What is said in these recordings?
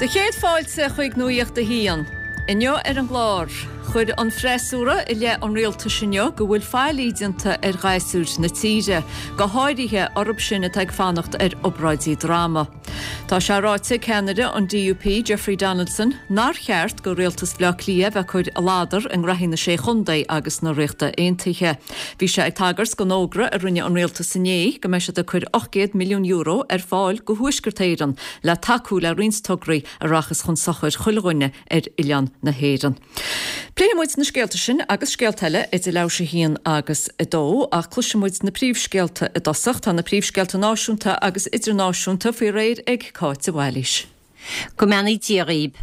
Do chéad fáilte chuig Nuacht a hAon. Inniu ar an gclár, chuir an freasúra i leith an rialtais inniu go bhfuil faillí déanta ar ghasúir na tíre, go háirithe orthu sin atá ag fanacht ar obráidí droma. Tá sé ráite ag ceannaire an DUP, Jeffrey Donaldson, nár cheart go rialtas Bhaile Átha Cliath bheith ag cur a ladar i ngraithí na Sé Chontae agus na Ríochta Aontaithe. Bhí sé ag tagairt don fhógra a rinne an rialtas inné go mbeidh siad ag cur €800 milliún ar fáil go Thuaisceart Éireann le tacú le roinnt tograí a rachas chun sochair chuile dhuine ar oileán na hÉireann. Pléifidh muid na scéalta sin agus scéalta eile idir leathuair théis 1 agus 2, ach cloisfidh muid na príomhscéalta i dtosach. Tá na príomhscéalta náisiúnta agus idirnáisiúnta faoi réir ag Cáit de Bhailís. Go mbeannaí Dia dhaoib.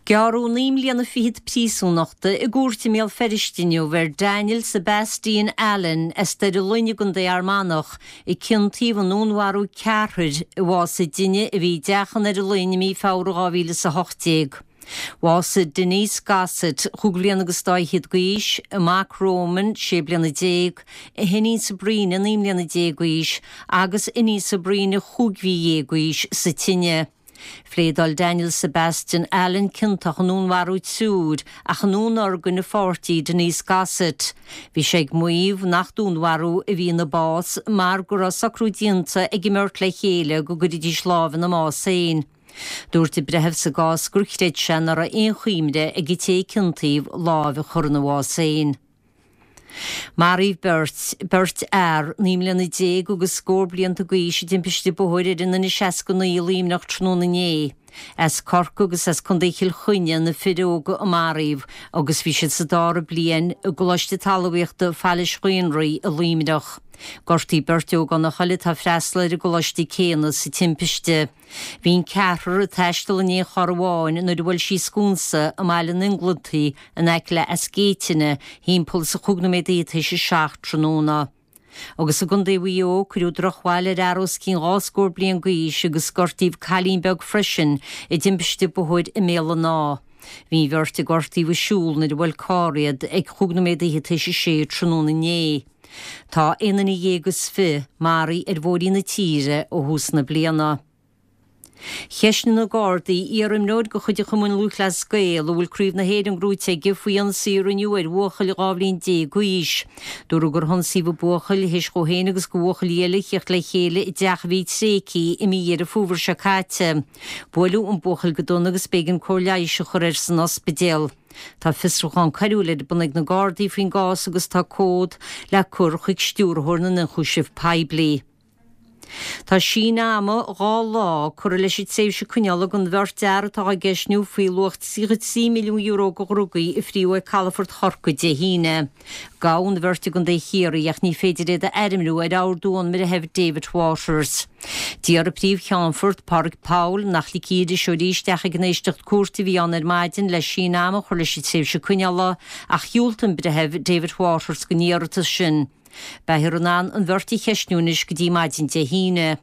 Gearradh 9 mbliana fichead príosúnachta i gcúirt i mBéal Feirste inniu ar Daniel Sebastian Allen as Doire Fhloinn i gContae Fhear Manach a ciontaíodh i ndúnmharú ceathrair i bhásaigh duine a bhí i dteach i nDoire Fhloinn i mí Feabhra 2018. Bhásaigh Denise Gossett, chúig bhliana agus dá fhichead d'aois, a mac Roman, sé bliana déag, a hiníon Sabrina, 19 mbliana d'aois, agus iníon Sabrina, chúig mhí dhéag d'aois, sa tine. Phléadáil Daniel Sebastian Allen ciontach i ndúnmharú triúir ach i ndúnorgain a pháirtí Denise Gossett. Bhí sé ag maíomh nach dúnmharú a bhí ina bás mar go raibh socrú déanta ag an mbeirt le chéile go gcuirfidís lámh ina mbás féin. Dúirt an breitheamh sa gcás gur chreid sé nach raibh aon chuimhne ag an té a ciontaíodh lámh a chur ina bhás féin. Maraíodh beirt, beirt fhear, 19 mbliana agus scór blianta d'aois i dtimpiste bóthair ar an N69 i Luimneach tráthnóna inné. As Corcaigh agus as Contae Chill Chainnigh na fir óga a maraíodh agus bhí siad sa dara bliain i gColáiste Talmhaíochta Phailís Ghaonraí i Luimneach. Gortaíodh beirt ógánach eile atá ag freastal ar an gcoláiste céanna sa timpiste. Bhí an ceathrar ag taisteal in aon charr amháin nuair a bhuail sí sconsa i mBaile an Inglintigh in aice le Eas Géitine thimpeall is a chúig nóiméad tar éis a 7 tráthnóna. Agus i gContae Mhaigh Eo, cuireadh drochbhail ar fhear os cionn dhá scór bliain d'aois agus gortaíodh cailín beag freisin i dtimpiste bóthair i mBéal an Átha. Bhí an bheirt a gortaíodh ag siúl nuair a bhuail carr iad ag chúig nóiméad fhichead tar éis a sé tráthnóna inné. Tá aon duine dhéag is fi maraithe ar bhóithrí na tíre ó thús na bliana. Cheistnigh na Gardaí iar-imreoir de chuid an Chumainn Lúthchleas Gael a bhfuil Craobh na hÉireann gnóite aige faoi ionsaí a rinneadh ar bhuachaill 12 bhliain d'aois. Dúradh gur hionsaíodh an buachaill théis dhó féin agus do bhuachaillí eile theacht le chéile i dteach a bhí tréigthe i mí Dheireadh Fómhair seo caite. Buaileadh an buachaill go dona agus b'éigean cóir leighis a chur air san ospidéal. Tá fiosrúchán coiriúil ar bun ag na Gardaí faoin gcás agus tá comhad le cur chuig Stiúrthóir na nIonchúiseamh Poiblí. Tá síneadh ama 2 lá curtha leis an tréimhse coinneála don bheirt fhear atá á gceistniú faoi luach €33 milliún de dhrugaí a fríodh ag calafort Chorcaí Dé hAoine. Gabhadh an bheirt i gContae Chiarraí ach ní féidir iad a ainmniú ar ordú ón mBreitheamh David Waters. D'iarr an Príomh-Cheannfort, Pádraig Powell, nach ligfí iriseoirí isteach ag an éisteacht cúirte a bhí ann ar maidin le síneadh ama a chur leis an tréimhse coinneála ach dhiúltaigh an Breitheamh David Waters don iarratas sin. Beifear in ann an bheirt a cheistniú anois go dtí maidin Dé hAoine.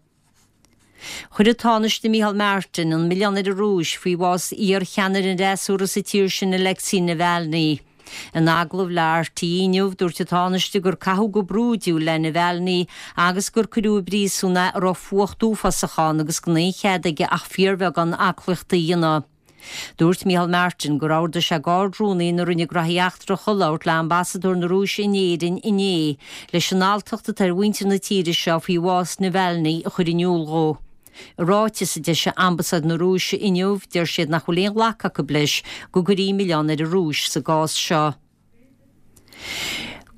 Chuir an Tánaiste Micheál Martin an milleán ar an Rúis faoi bhás iar-cheannaire an fhreasúra sa tír sin Alexei Navalny. In agallamh le RTÉ inniu, dúirt an Tánaiste gur caitheadh go brúidiúil le Navalny agus gur cuireadh i bpríosún é a raibh fuacht uafásach ann agus gan aon chead aige ach fíorbheagán aclaíochta a dhéanamh. Dúirt Micheál Martin gur ordaigh sé d'Ard-Rúnaí na Roinne Graithí Eachtracha labhairt le Ambasadóir na Rúise in Éirinn inné leis an alltacht atá ar mhuintir na tíre seo faoi bhás Navalny a chur in iúl dhó. I ráiteas a d'eisigh Ambasáid na Rúise inniu, deir siad nach bhfuil aon ghlacadh acu leis go gcuirfí milleán ar an Rúis sa gcás seo.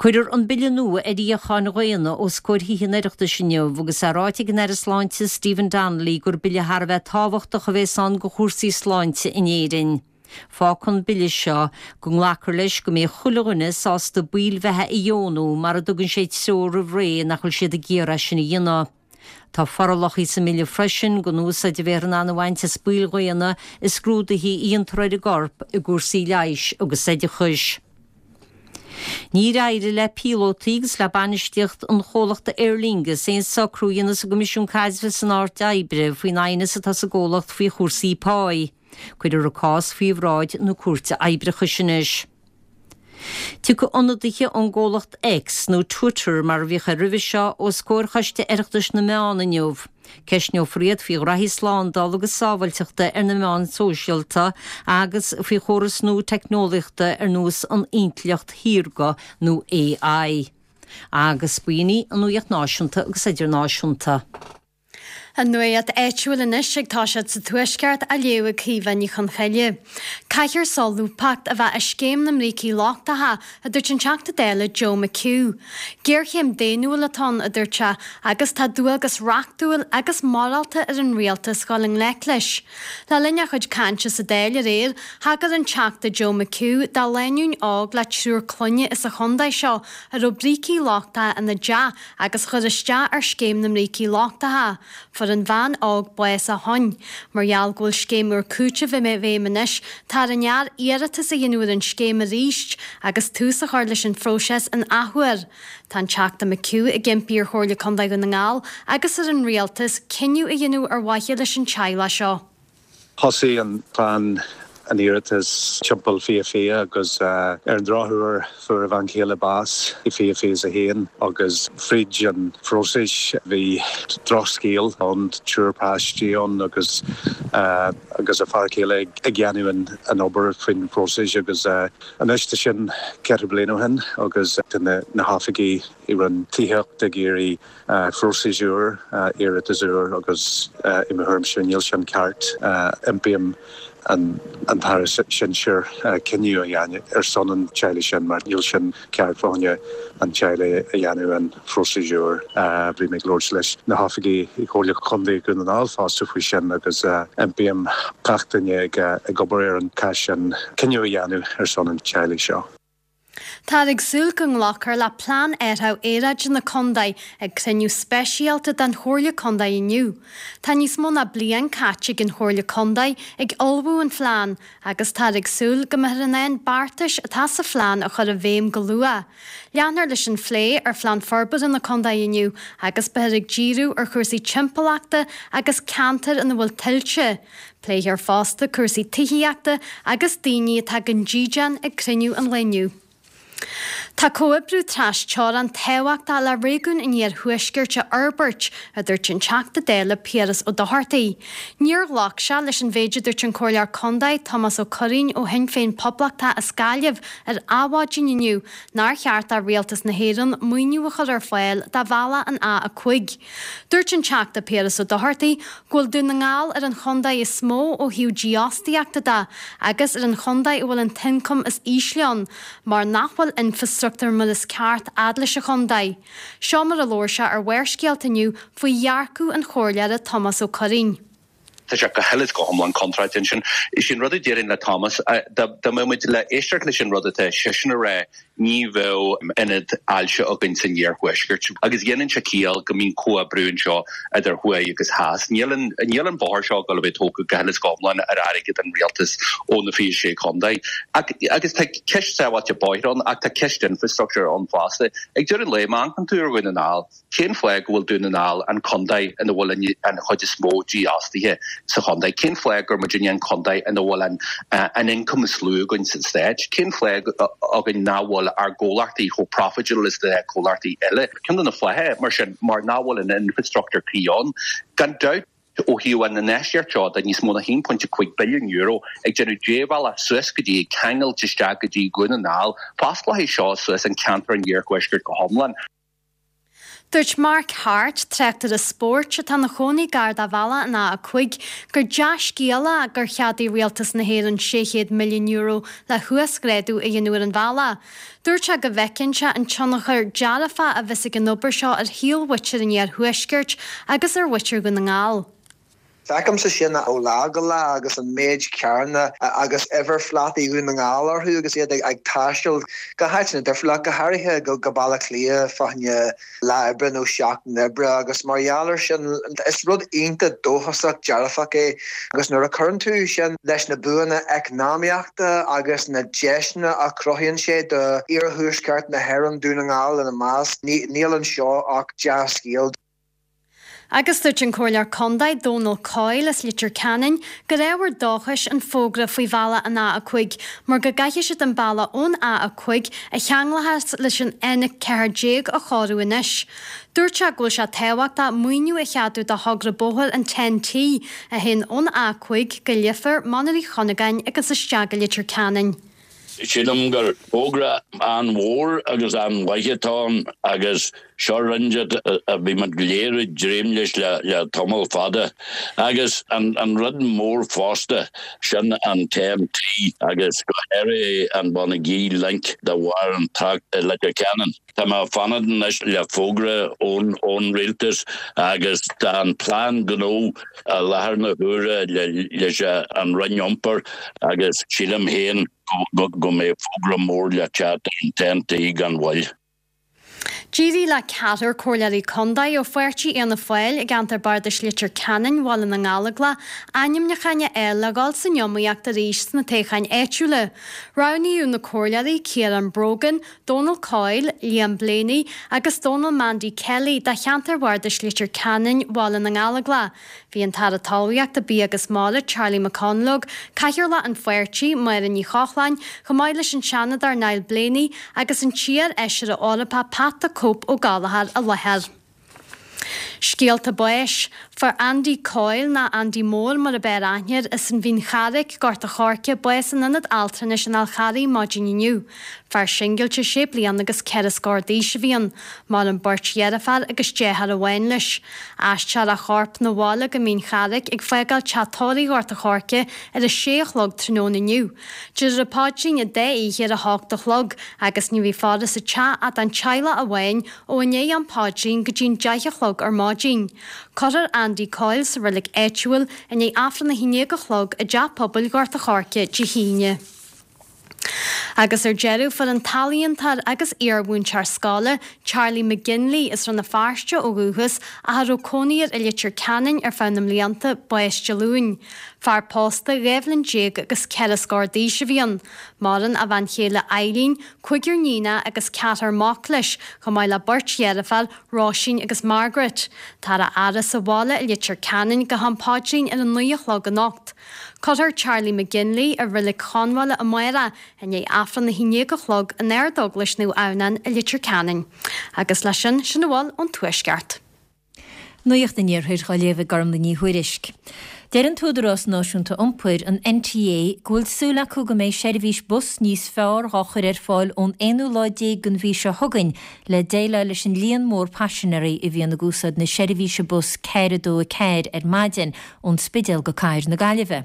Cuirfear an bille nua ar fhíocháin dhaonna os comhair Thithe an Oireachtais inniu agus é ráite ag an Aire Sláinte Stephen Donnelly gur bille thar a bheith tábhachtach a bhéas ann do chúrsaí sláinte in Éirinn. Fágfaidh an bille seo go nglacfar leis go mbeidh chuile dhuine sásta baill bheatha a dheonú mara dtugann sé treoir roimh ré nach bhfuil siad ag iarraidh sin a dhéanamh. Tá forálacha sa mbille freisin don úsáid a bheifear in ann a bhaint as baill dhaonna i scrúduithe a dhéantar ar an gcorp i gcúrsaí leighis agus oideachais. Níor éirigh le píolótaí agus le bainistíocht an chomhlachta Aer Lingus aon socrú a dhéanamh sa gCoimisiún Caidrimh is san Áit Oibre faoin aighneas atá sa gcomhlacht faoi chúrsaí páí. Cuirfear an cás faoi bhráid na Cúirte Oibreachais anois. Tiocfaidh ionadaithe ón gcomhlacht X, nó Twitter mar a bhíodh air roimhe seo, os comhair Choiste Oireachtais na Meán inniu. Ceistneofar iad faoi ghraithí slándála agus sábháilteachta ar na meáin shóisialta agus faoi chórais nua teicneolaíochta ar nós an intleacht shaorga nó AI. Agus b'in í an nuaíocht náisiúnta agus idirnáisiúnta. An nuacht áitiúil anois ag toiseacht sa Tuaisceart á léamh ag Caoimhe Ní Chonchoille. Caithfear solúbthacht a bheith i scéim na mbrící lochtacha, a dúirt an Teachta Dála Joe McHugh. Géarchéim daonnúil atá ann, a dúirt sé, agus tá dualgas reachtúil agus morálta ar an Rialtas dhul i ngleic leis. Le linn a chuid cainte sa Dáil aréir, thagair an Teachta Joe McHugh do lánúin óg le triúr clainne as an chontae seo a raibh brící lochtacha ina dteach agus a chuir isteach ar scéim na mbrící lochtacha. Fuair an bhean óg bás ó shoin. Mar gheall go bhfuil scéim úr cúitimh i bhfeidhm anois, tá ar an fhear iarratas a dhéanamh ar an scéim arís agus tús a chur leis an phróiseas an athuair. Tá an Teachta McHugh ag impí ar Chomhairle Contae Dhún na nGall agus ar an Rialtas cinneadh a dhéanamh ar mhaithe leis an teaghlach seo. Thosaigh an chlann an iarratas timpeall 2020 agus ar an drochuair fuair a bhean chéile bás i 2021 agus fríd an phróiseas bhí drochscéal ann, triúr páistí ann agus agus a fear céile ag déanamh an obair faoin phróiseas agus anois tá sin ceithre bliana ó shin agus tá na hoifigigh i Roinn Tithíochta ag iarraidh Phróiseas úr, iarratas úr agus i mo thuairimse níl sin ceart. Impím an tAire Sinsir cinneadh a dhéanamh ar son an teaghlaigh sin mar níl sin ceart fá choinne an teaghlaigh a dhéanamh an phróiseas úr. Bhí mé ag labhairt leis na hoifigigh i Comhairle Chontae Dhún na nGall fosta faoi sin agus impím gach duine ag obair ar an cás sin cinneadh a dhéanamh ar son an teaghlaigh seo. Táthar ag súil go nglacfar le Plean Athraithe Aeráide na Contae ag cruinniú speisialta den Chomhairle Contae inniu. Tá níos mó ná bliain caite ag an Chomhairle Contae ag ullmhú an phlean agus táthar ag súil go mbeifear in ann beartais atá sa phlean a chur i bhfeidhm go luath. Leanfar leis an phlé ar Phlean Forbartha na Contae inniu agus beifear ag díriú ar chúrsaí timpeallachta agus ceantair ina bhfuil tuilte. Pléifear fosta cúrsaí tithíochta agus daoine atá gan dídean ag cruinniú an lae inniu. Tá comhoibriú tras-teorann tábhachtach le réigiún an Iarthuaiscirt a fhorbairt, a dúirt an Teachta Dála Piaras Ó Dochartaigh. Níor ghlac sé leis an mhéid a dúirt an Comhairleoir Contae Tomás Ó Curraoin ó Shinn Féin Poblachtach as Gaillimh ar Adhmhaidin inniu nár cheart do Rialtas na hÉireann maoiniú a chur ar fáil do bhealach an A5. Dúirt an Teachta Piaras Ó Dochartaigh go bhfuil Dún na nGall ar an chontae is mó ó thaobh dífhostaíochta de agus ar an chontae a bhfuil an t-ioncam is ísle ann mar nach bhfuil infreastruchtúr mar is ceart fhad leis an chontae. Seo mar a labhair sé ar Bharrscéalta inniu faoi dhearcadh an Chomhairleora Tomás Ó Curraoin. Tá sé go huile is go hiomlán contráilte ansin. Is é an rud a déarfainn le Thomas, dá mbeadh muid le éisteacht leis an rud atá seisean a rá, ní bheadh ionad ailse againn san iarthuaisceart. Agus dhéanann sé ciall go mbíonn comhoibriú anseo idir thuaidh agus theas. Níl an, níl an bóthar seo ag dul a bheith tógtha go huile is go hiomlán ar airgead an rialtais ó na 26 contae. Ach, agus tá ceist sábháilte bóithre ann ach tá ceist infrastructure ann fosta. Ag deireadh an lae, má amharcann tú ar Dhún na nGall, Cén fáth go bhfuil Dún na nGall an contae ina bhfuil an chuid is mó dífhostaithe sa chontae? Cén fáth gur muidinne an contae ina bhfuil an an ioncam is lú againn sa stát? Cén fáth againn nach bhfuil ár gcomhlachtaí chomh profitable is na comhlachtaí eile? Ceann de na fátha, mar sin, mar nach bhfuil an infrastructure cuí ann. Gan dabht. ó thaobh an infheistíocht seo de níos mó ná €1.5 billiún ag déanamh débhealach suas go dtí, ag ceangailt isteach go dtí Dhún na nGall, fosclóidh seo suas an ceantar an iarthuaiscirt go hiomlán. Dúirt Mark Harte, tráchtaire spóirt atá ina chónaí gar do bhealach an A5, gur dea-scéal é gur cheadaigh Rialtas na hÉireann €600 milliún le huasghrádú a dhéanamh ar an bhealach. Dúirt sé go bhfeiceann sé an tionchar dearfach a bheas ag an obair seo ar shaol mhuintir an iarthuaiscirt agus ar mhuintir Dhún na nGall. Feicimse sin ó lá go lá agus an méid carranna agus uimhirphlátaí Dhún na nGall orthu agus iad ag taisteal go háiteanna difriúla, ach go háirithe go Baile Átha Cliath fá choinne lá oibre nó seachtain oibre agus mar gheall air sin is rud iontach dóchasach dearfach é agus nuair a chuireann tú sin leis na buanna eacnamaíochta agus na deiseanna a chruthaíonn sé do iarthuaisceart na hÉireann, Dún na nGall ina measc, níl anseo ach dea-scéal. Agus dúirt an Comhairleoir Contae, Dónal Coyle as Leitir Ceanainn, gur ábhar dóchais an fógra faoi bhealach an A5 mar go gcaithfidh siad an bealach ón A5 a cheanglóchas leis an N14 a chóiriú anois. Dúirt sé go bhfuil sé tábhachtach maoiniú a cheadú do thogra bóthair an TEN-T a théann ón A5 go Leifear, Mainír Uí Chuinneagáin agus isteach go Leitir Ceanainn. Sílim gur fógra an-mhór agus an-mhaith atá ann agus seo rud a bhí muid go léir ag dréim leis le tamall fada. Agus an rud mór fosta, sin an TEN-T agus go háirithe an Bonagee Link de bharr an trácht i Leitir Ceanainn. Tá mé ag fanacht anois le fógra ón ón rialtas agus tá an plean gnó i láthair na huaire leis an Roinn Iompair agus sílim féin go mbeidh fógra mór le teacht ar an TEN-T gan mhoill. D'éirigh le ceathrar Comhairleoirí Contae ó pháirtí Fhianna Fáil i gceantar Bardais Leitir Ceanainn, Bhaile na nGallóglach ainmniúcháin a fháil le dhul san iomaíocht arís sna toghcháin áitiúla. Roghnaíodh na Comhairleoirí Ciarán Brogan, Dónal Coyle, Liam Blaney agus Dónal Mandy Kelly do cheantar Bhardais Leitir Ceanainn, Bhaile na nGallóglach. Bhí an tAire Talmhaíochta, Bia agus Mara, Charlie McConalogue, Cathaoirleach an pháirtí, Máire Ní Chochláin, chomh maith leis an Seanadóir Niall Blaney agus an t-iar-fheisire Eorpach Pat the Cope Ó Gallchóir i láthair. Scéalta báis. Fuair Andy Coyle, nó Andy Mór mar ab fhearr aithne air, as an Mhín Charraic, Gort a' Choirce, bás in Ionad Altranais an Fhál Charraigh maidin inniu. Fear singilte sé bliana agus ceithre scór d'aois a bhí ann. Maireann beirt dheirféar agus deartháir amháin leis. Aistreofar a chorp 'na bhaile go Mín Charraic ag fágáil teach tórraimh Ghort a' Choirce ar a sé a chlog tráthnóna inniu. Déarfar an paidrín an dá oíche ar a hocht a chlog agus ní bheidh faire sa teach ach don teaghlach amháin ó i ndiaidh an phaidrín go dtí'n deich a chlog ar maidin. Cuirfear Andy Coyle sa reilig áitiúil i ndiaidh Aifreann 11 a chlog i dTeach Pobail Ghort a' Choirce Dé hAoine. Agus ar deireadh, fuair an t-ealaíontóir agus iar-mhúinteoir scoile, Charlie McGinley, as Rann na Feirste ó dhúchas ach a raibh cónaí air i Leitir Ceanainn ar feadh na mblianta, bás Dé Luain. Fear pósta, 12 bhliain agus ceithre scór d'aois a bhí ann. Maireann a bhean chéile Eileen, cúigear níonacha agus ceathrar mac leis, chomh maith le beirt dheirféar, Róisín agus Margaret. Táthar á fhaire sa bhaile i Leitir Ceanainn go ham paidrín ar a naoi a chlog anocht. Cuirfear Charlie McGinley i Reilig Chonbhaile amárach i ndiaidh Aifreann 11 a chlog in Ardeaglais Naomh Adhamhnáin i Leitir Ceanainn. Agus leis sin, sin a bhfuil ón Tuaisceart. Nuacht an Iarthair á léamh ag Gormlaith Ní Thuairisg. Deir an tÚdarás Náisiúnta Iompair, an NTA, go bhfuil súil acu go mbeidh seirbhís bus níos fearr dhá chur ar fáil ón aonú lá déag den mhí seo chugainn le déileáil leis an líon mór paisinéirí a bhíonn ag úsáid na seirbhíse bus 4 2 4 ar maidin ón Spidéal go Cathair na Gaillimhe.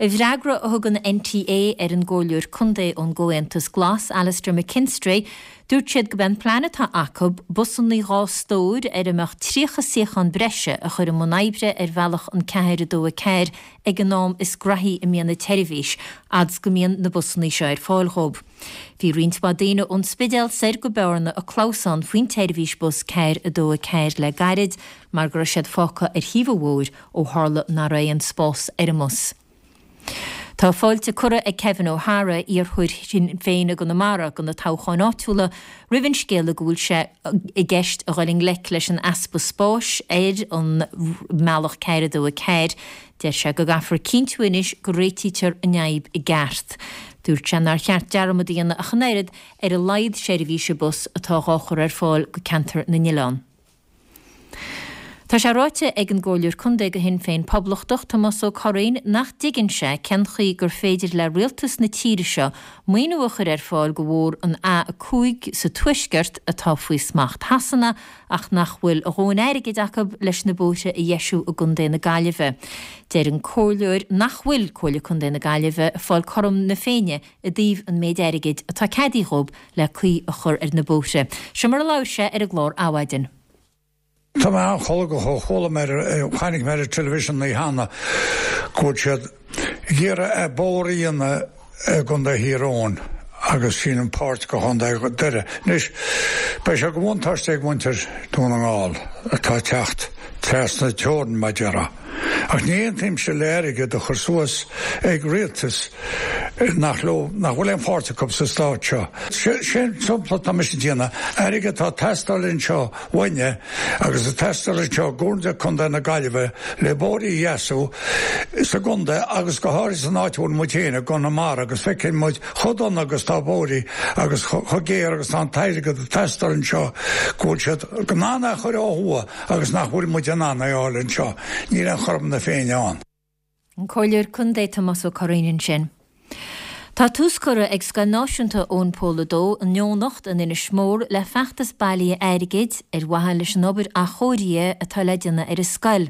I bhfreagra a thug an NTA ar an gComhairleoir Contae ón gComhaontas Glas, Alastair McKinstry, dúirt siad gurb é an plean atá acu busanna 2 stór ar a mbeadh 30 suíochán breise a chur i mbun oibre ar bhealach an 4 2 4 ag an am is graithí a mbíonn an tseirbhís, fhad 's go mbíonn na busanna seo ar fáil dhóibh. Bhí roinnt mhaith daoine ón Spidéal soir go Bearna ag clamhsán faoin tseirbhís bus 4 2 4 le gairid mar go raibh siad fágtha ar thaobh an bhóthair ó tharla nach raibh aon spás ar an mbus. Tá fáilte curtha ag Kevin O'Hara, iarrthóir Shinn Féin i gConamara do na toghcháin áitiúla, roimh an scéala go bhfuil sé i gceist a dhul i ngleic leis an easpa spáis ar an mbealach 4 2 4. Deir sé go gcaithfear cinntiú anois go réitítear an fhadhb i gceart. Dúirt sé nár cheart dearmad a dhéanamh ach an oiread ar a laghad seirbhíse bus atá dhá chur ar fáil go ceantar na n-oileán. Tá sé ráite ag an gComhairleoir Contae do Shinn Féin Poblachtach, Tomás Ó Curraoin, nach dtuigeann sé cén chaoi gur féidir le rialtas na tíre seo maoiniú a chur ar fáil do bhóthar an A5 sa Tuaisceart atá faoi smacht Shasana ach nach bhfuil a dhóthain airgid acu leis na bóithre a dheisiú i gContae na Gaillimhe. Deir an Comhairleoir nach bhfuil Comhairle Contae na Gaillimhe ag fáil cothrom na Féinne i dtaobh an méid airgid atá ceadaithe dhób le caoi a chur ar na bóithre. Seo mar a labhair sé ar an gclár Adhmhaidin. Tá mé an-cholgach ó chuala mé ar, chonaic mé ar an television an oíche cheana go bhfuil siad ag iarraidh bóthar a dhéanamh i gContae Thír Eoghain agus sin an páirt de Chontae Doire. Anois, beidh sé de bhuntáiste ag muintir Dún na nGall atá ag teacht. Trasna teorann, mar déarfá. Ach ní aontaímse le airgead a chur suas ag rialtas nach leo, nach bhfuil aon pháirt acu sa stát seo. Sé an sampla atá mise ag déanamh, airgead atá ag teastáil anseo uainne agus ag teastáil anseo i gComhairle Contae na Gaillimhe le bóithrí a dheasú sa gcontae agus go háirithe san áit a bhfuil muid féin i gConamara agus feiceann muid chomh dona agus tá bóithrí agus chomh géar agus tá an t-airgead ag teastáil anseo go bhfuil siad in ann é a chur ó thuaidh agus nach bhfuil muid in ann é a fháil anseo. Níl aon chothrom na Féinne ann. An Comhairleoir Contae Tomás Ó Curraoin ansin. Tá tús curtha ag Scoil Náisiúnta Eoin Pól 2 in Eoghanacht in Inis Mór le feachtas bailithe airgid ar mhaithe leis an obair athchóirithe atá le déanamh ar an scoil.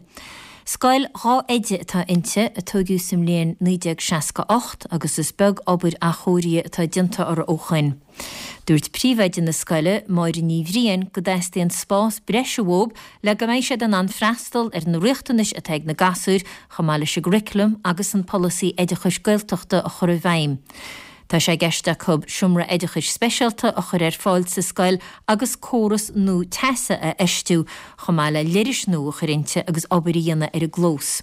Scoil 12 oide atá inti, a tóigeadh sa mbliain 1968 agus is beag obair athchóirithe atá déanta uirthi ó shoin. Dúirt príomhoide na scoile, Máire Ní Bhriain, go dteastaíonn spás breise uathu le go mbeidh siad in ann freastal ar na riachtanais atá ag na gasúir chomh maith leis an gcurriculum agus an polasaí oideachais Gaeltachta a chur i bhfeidhm. Tá sé i gceist acu seomra oideachais speisialta a chur ar fáil sa scoil agus córas nua teasa a fheistiú chomh maith le leithris nua a chur inti agus obair a dhéanamh ar an gclós.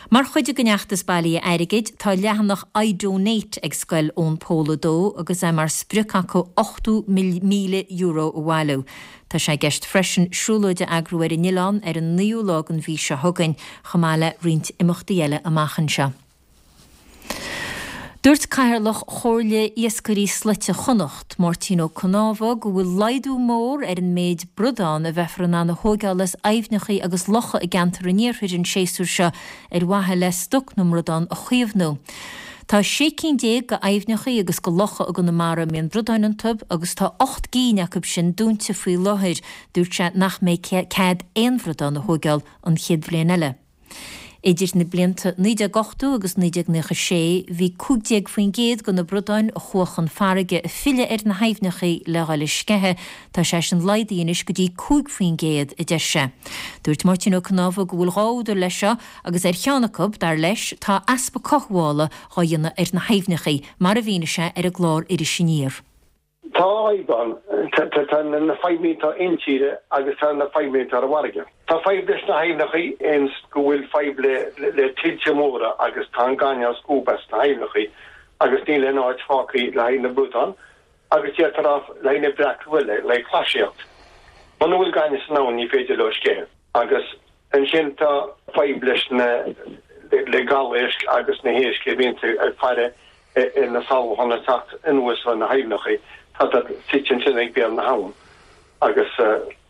Mar chuid den fheachtas bailithe airgid, tá leathanach iDonate ag Scoil Eoin Pól 2 agus é mar sprioc acu €80,000 a bhailiú. Tá sé i gceist freisin siúlóid a eagrú ar an oileán ar an naoú lá den mhí seo chugainn, chomh maith le roinnt imeachtaí eile amach anseo. Dúirt Cathaoirleach Chomhairle Iascairí Slaite Chonnacht, Máirtín Ó Cnámha, go bhfuil laghdú mór ar an méid bradán a bheifear in ann a thóigeáil as aibhneacha agus locha i gceantar an iarthair an séasúr seo ar mhaithe le stoc na mbradán a chaomhnú. Tá 16 cinn de aibhneacha agus de locha i gConamara a mbíonn bradáin iontu agus tá 8 gcinn acu sin dúnta faoi láthair. Dúirt sé nach mbeidh cead aon bhradán a thóigeáil an chéad bhliain eile. Idir na blianta 1980 agus 1996, bhí 15% de na bradáin a chuaigh chun farraige ag filleadh ar na haibhneacha le dhul ag sceitheadh, tá sé sin laghdaithe anois go dtí 5%, a deir sé. Dúirt Máirtín Ó Cnámha go bhfuil dhá údar leis seo agus ar cheann acu, dar leis, tá easpa cothabhála dhá dhéanamh ar na haibhneacha, mar a mhínigh sé ar an gclár Iris Aniar. Tá fadhb ann. Tá na fadhbanna atá intíre agus tá na fadhbanna atá ar an bhfarraige. Tá fadhb leis na haibhneacha ins go bhfuil fadhb le tuilte móra agus tá an gaineamh á scuabadh as na haibhneacha agus níl aon áit fágtha le haghaidh na bradán agus d'fhéadfá a rá le haghaidh na breac le haghaidh clasaíocht. Muna bhfuil gaineamh san abhainn ní féidir leo sceitheadh agus ansin tá fadhb leis na le gabháil éisc agus na héisc a bhíonn ag faire ar na sabhcháin ag teacht anuas ó na haibhneacha, tá siad suite ansin ag béal na habhann agus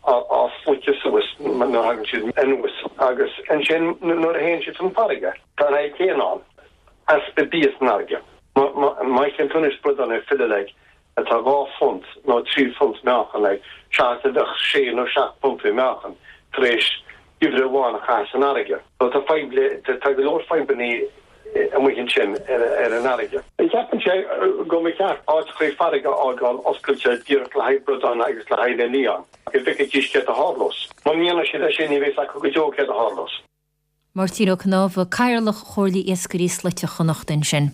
á sloiceadh suas nuair a thagann siad anuas agus ansin nuair a théann siad chun farraige, tá an fhadhb chéanna ann, easpa bia san fharraige. Má fheiceann tú anois bradán ag filleadh like atá 2 phunt nó 3 phunt meáchan like seachas a bheadh sé nó seacht bpuntaí meáchan tar éis geimhreadh amháin a chaitheamh san fharraige. So tá fadhb le, tá go leor fadhbannaí amuigh ansin ar an fharraige. Ceapann sé go mba cheart áiteachaí farraige a fhágáil oscailte díreach le haghaidh bradán agus le haghaidh na lián, go bhfeicfidís céard a tharlós. Muna ndéanann siad é sin ní bheidh 's acu go deo céard a tharlós. Máirtín Ó Cnámha, Cathaoirleach Chomhairle Iascairí Slaite Chonnacht ansin.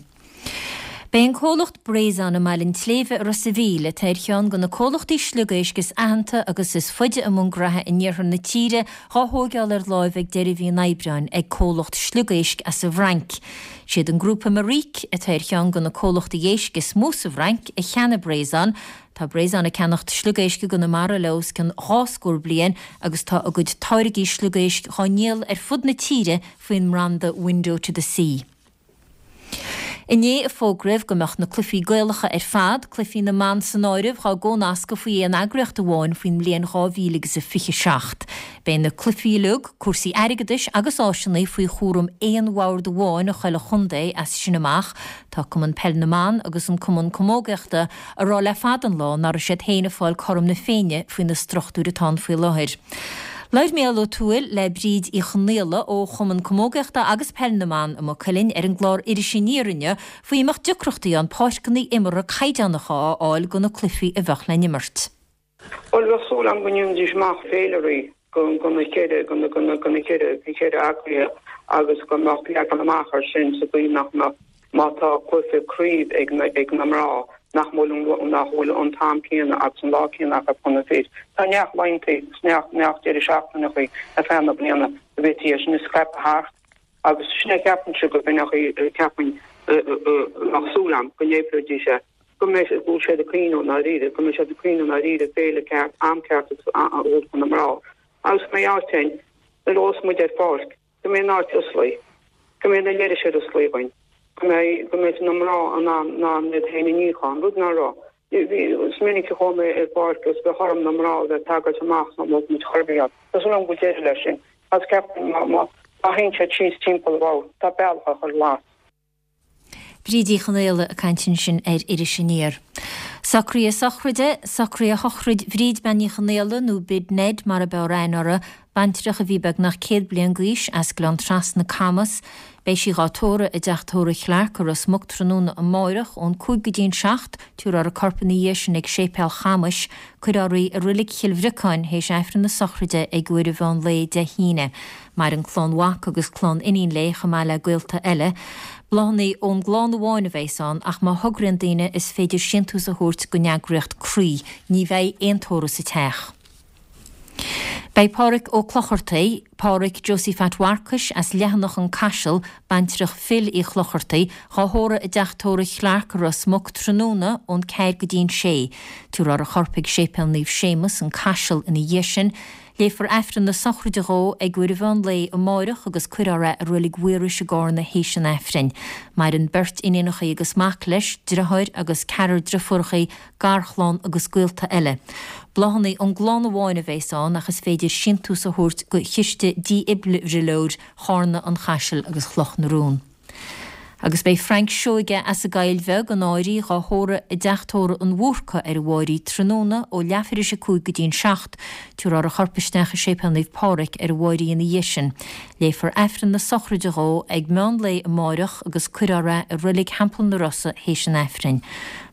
Beidh an comhlacht Breizon i mBaile an tSléibhe i Ros a' Mhíl, atá ar cheann de na comhlachtaí sliogéisc is aitheanta agus is faide i mbun graithe in iarthar na tíre, dhá thóigeáil ar láimh ag deireadh mhí an Aibreáin ag comhlacht sliogéisc as an bhFrainc. Siad an grúpa Maric, atá ar cheann de na comhlachtaí éisc is mó sa bhFrainc, a cheannaigh Breizon. Tá Breizon ag ceannacht sliogéisc i gConamara le os cionn dhá scór bliain agus tá a gcuid táirgí sliogéisc dhá ndíol ar fud na tíre faoin mbranda Window to the Sea. Inné a fógraíodh go mbeadh na cluichí Gaelacha ar fad, cluichí na mban san áireamh, dhá gcónascadh faoi aon eagraíocht amháin faoin mbliain 2027. Beidh na cluichí uilig, cúrsaí airgeadais agus áiseanna faoi chúram aon bhord amháin i chuile chontae as sin amach. Tá Cumann Peil na mBan agus an Cumann Camógaíochta ag rá le fada an lá nach raibh siad féin ag fáil cothrom na Féinne faoi na struchtúir atá ann faoi láthair. Labhair Mícheál Ó Tuathail le Bríd Uí Chonaola ó Chumann Camógaíochta agus Peil na mBan i Maigh Cuilinn ar an gclár Iris Aniar inniu faoi an mbeadh deacrachtaí ann páirceanna imeartha caighdeánacha a fháil do na cluichí a bheadh le n-imirt. Bhuel, bheadh súil agam go ndéanfaidís amach féilirí do na ceithre, do na ceithre, na ceithre eagraithe agus go mbeadh leagan amach air sin sa gcaoi nach mbeadh, má tá cluiche craoibh ag na, ag na mná. Nach bhfuil nach bhfuil an t-am céanna agus an lá céanna acu chun na fir. Tá neart laethanta is neart neart deireadh seachtaineacha ar feadh na bliana a bhféadfaí é sin a scaipeadh thart agus sin é ceapaimse go b'in é ceapaim bheadh súil agam go n-oibreoidís é go mbeidh go bhfuil siad ag cuimhneamh i ndáiríre go mbeidh siad ag cuimhneamh i ndáiríre féile ceart am ceart agus a thabhairt do na mná agus go mbeidh áit ann nuair a ghabhfas muid ar pháirc go mbeidh an áit osclaí, go mbeidh na leithris ar osclaí againn, go mbeidh, go mbeidh na mná in ann, in ann iad féin a níochán, rud ná raibh. Bhí, is minic a chuaigh mé ar pháirc agus bheadh orm na mná a bheith ag tagairt amach ná mbeadh muid chor ar bith ann. Tá súil agam go bhfuil deireadh leis sin. Agus ceapaim má, má, má théann siad síos timpeall abhus, tá bealach á chur glas. Bríd Uí Chonaola ag caint ansin ar Iris Aniar. Socruithe sochraide, Socruithe shochraid Bhríd Bean Uí Chonaola, nó Bid Ned mar ab fhearr aithne uirthi, baintreach a bhí beagnach 100 bliain d'aois, as Gleann Trasna, Camas. Beidh sí dhá tórramh i dTeach Tórraimh Chlarke i Ros Muc tráthnóna amáireach ón 5 go dtí an 7, tabharfar a corp ina dhiaidh sin ag Séipéal Chamais. Cuirfear í i Roilig Chill Bhriocáin théis Aifreann na sochraide ag uair an mheán lae Dé hAoine. Maireann clann mhac agus clann iníon léi chomh maith le gaolta eile. Bláthanna ón gclann amháin a bheas ann ach má thograíonn daoine is féidir síntiús a thabhairt don eagraíocht Croí. Ní bheidh aon tórramh sa teach. Beidh Pádhraic Ó Clochartaigh, Pádhraic Josie Phat Mharcais as Leathanach an Caiseal, baintreach Phil Uí Chlochartaigh, dhá thórramh i dTeach Tórraimh Chlarke i Ros Muc tráthnóna ón ceathair go dtí an sé. Tabharfar a chorp ag Séipéal Naomh Séamus, an Caiseal ina dhiaidh sin. Léifear Aifreann na sochraide dhó ag uair an mheán lae amáireach agus cuirfear é i Roilig Mhaorais i gCárna théis an Aifrinn. Maireann beirt iníonachaí agus mac leis, driotháir agus ceathrar driofúrachaí, garchlann agus gaolta eile. Bláthanna ón gclann amháin a bheas ann ach is féidir síntiús a thabhairt go Chiste Dífhibrileoir Chárna, an Chaisil agus Chloch na Rón. Agus beidh Frank Seoige as an gCoill Bheag, an Áirí, dhá thórramh i dTeach Tórraimh an Bhúrca ar an Mháirí tráthnóna ó leathuair théis a 5 go dtí an 7. Tabharfar a chorp isteach i Séipéal Naomh Pádraig ar an Mháirí ina dhiaidh sin. Léifear Aifreann na sochraide dhó ag meán lae amáireach agus cuirfear é i Roilig Theampall na Rosa théis an Aifrinn.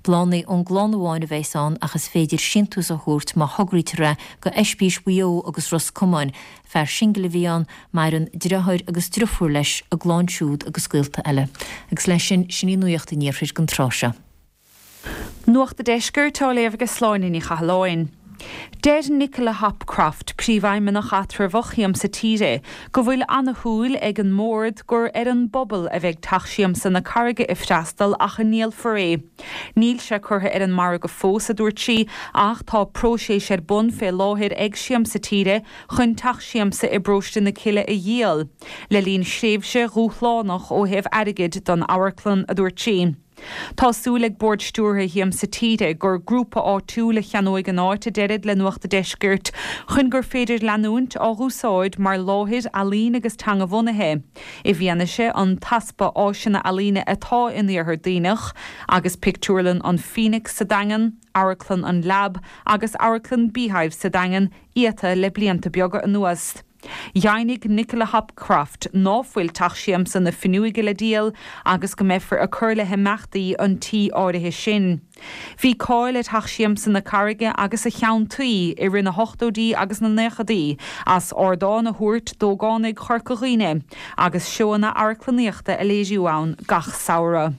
Bláthanna ón gclann amháin a bheas ann ach is féidir síntiús a thabhairt má thograítear é go Oispís Mhaigh Eo agus Ros Comáin. Fear singil a bhí ann, maireann driotháir agus driofúr leis, a gclann siúd agus gaolta eile. Agus leis sin, sin í Nuacht an Iarthair don tráth seo. Nuacht a' Deiscirt á léamh ag Sláine Ní Chathalláin. Deir Nicola Hopcroft, Príomhfheidhmeannach Eatramhach Shiamsa Tíre, go bhfuil ana-shúil ag an mBord gur ar an bpobal a bheidh Teach Siamsa na Carraige ag freastal ach a ndíolfar é. Níl sé curtha ar an margadh fós, a dúirt sí, ach tá próiseas ar bun fé láthair ag Siamsa Tíre chun Teach Siamsa i bParóiste na Cille a dhíol, le linn thréimhse dhúshlánach ó thaobh airgid don amharclann, a dúirt sí. Tá súil ag Bord Stiúrtha Shiamsa Tíre gur grúpa áitiúil a cheannóidh an áit, a deirid le Nuacht a' Deiscirt, chun gur féidir leanúint á dh'úsáid mar láthair ealaíne agus teanga-bhunaithe, i bhfianaise an t-easpa áiseanna ealaíne atá in Iarthar Duibhneach, agus pictiúrlann an Phoenix sa Daingean, Amharclann an Lab agus Amharclann Beehive sa Daingean iata le blianta beaga anuas. Dheimhnigh Nicola Hopcroft ná fuil Teach Siamsa na Finneoige le díol agus go mbeifear ag cur le himeachtaí an tí áirithe sin. Bhí cáil ar Theach Siamsa na Carraige agus a cheann tuí i rith na hochtóidí agus na naochadaí as ardán a thabhairt d'ógánaigh Chorca Dhuibhne agus seóanna amharclannaíochta a léiriú ann gach samhradh.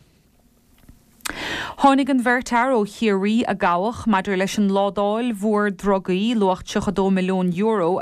Tháinig an bheirt fhear ó Chiarraí a gabhadh maidir leis an ládáil mhór drugaí, luach €32 milliún,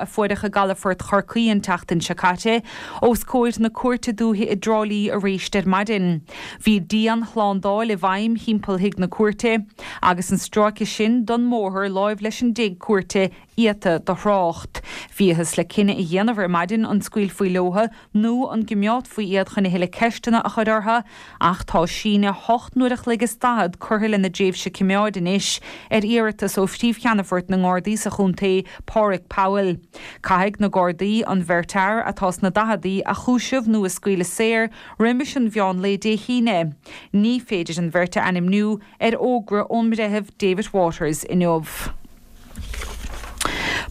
a fuaireadh i gcalafort Chorcaí an tseachtain seo caite, os comhair na Cúirte Dúiche i dTrá Lí aríst ar maidin. Bhí dian-shlándáil i bhfeidhm thimpeall thigh na cúirte, agus an stráice sin don mbóthar láimh leis an dtigh cúirte iata do thrácht. Bhíothas le cinneadh a dhéanamh ar maidin an scaoilfí leotha nó an gcimeádfaí iad chun a thuilleadh ceisteanna a chur orthu, ach tá síneadh hocht n-uair a chloig is daichead curtha lena dtréimhse cimeáid anois, ar iarratas ó Phríomh-Cheannfort na nGardaí sa chontae, Páraic Powell. Caithfidh na Gardaí an bheirt fhear, atá sna daicheadaí, a chúiseamh nó a scaoileadh saor roimis an mheán lae Dé hAoine. Ní féidir an bheirt a ainmniú ar fhógra ón mBreitheamh David Waters inniu.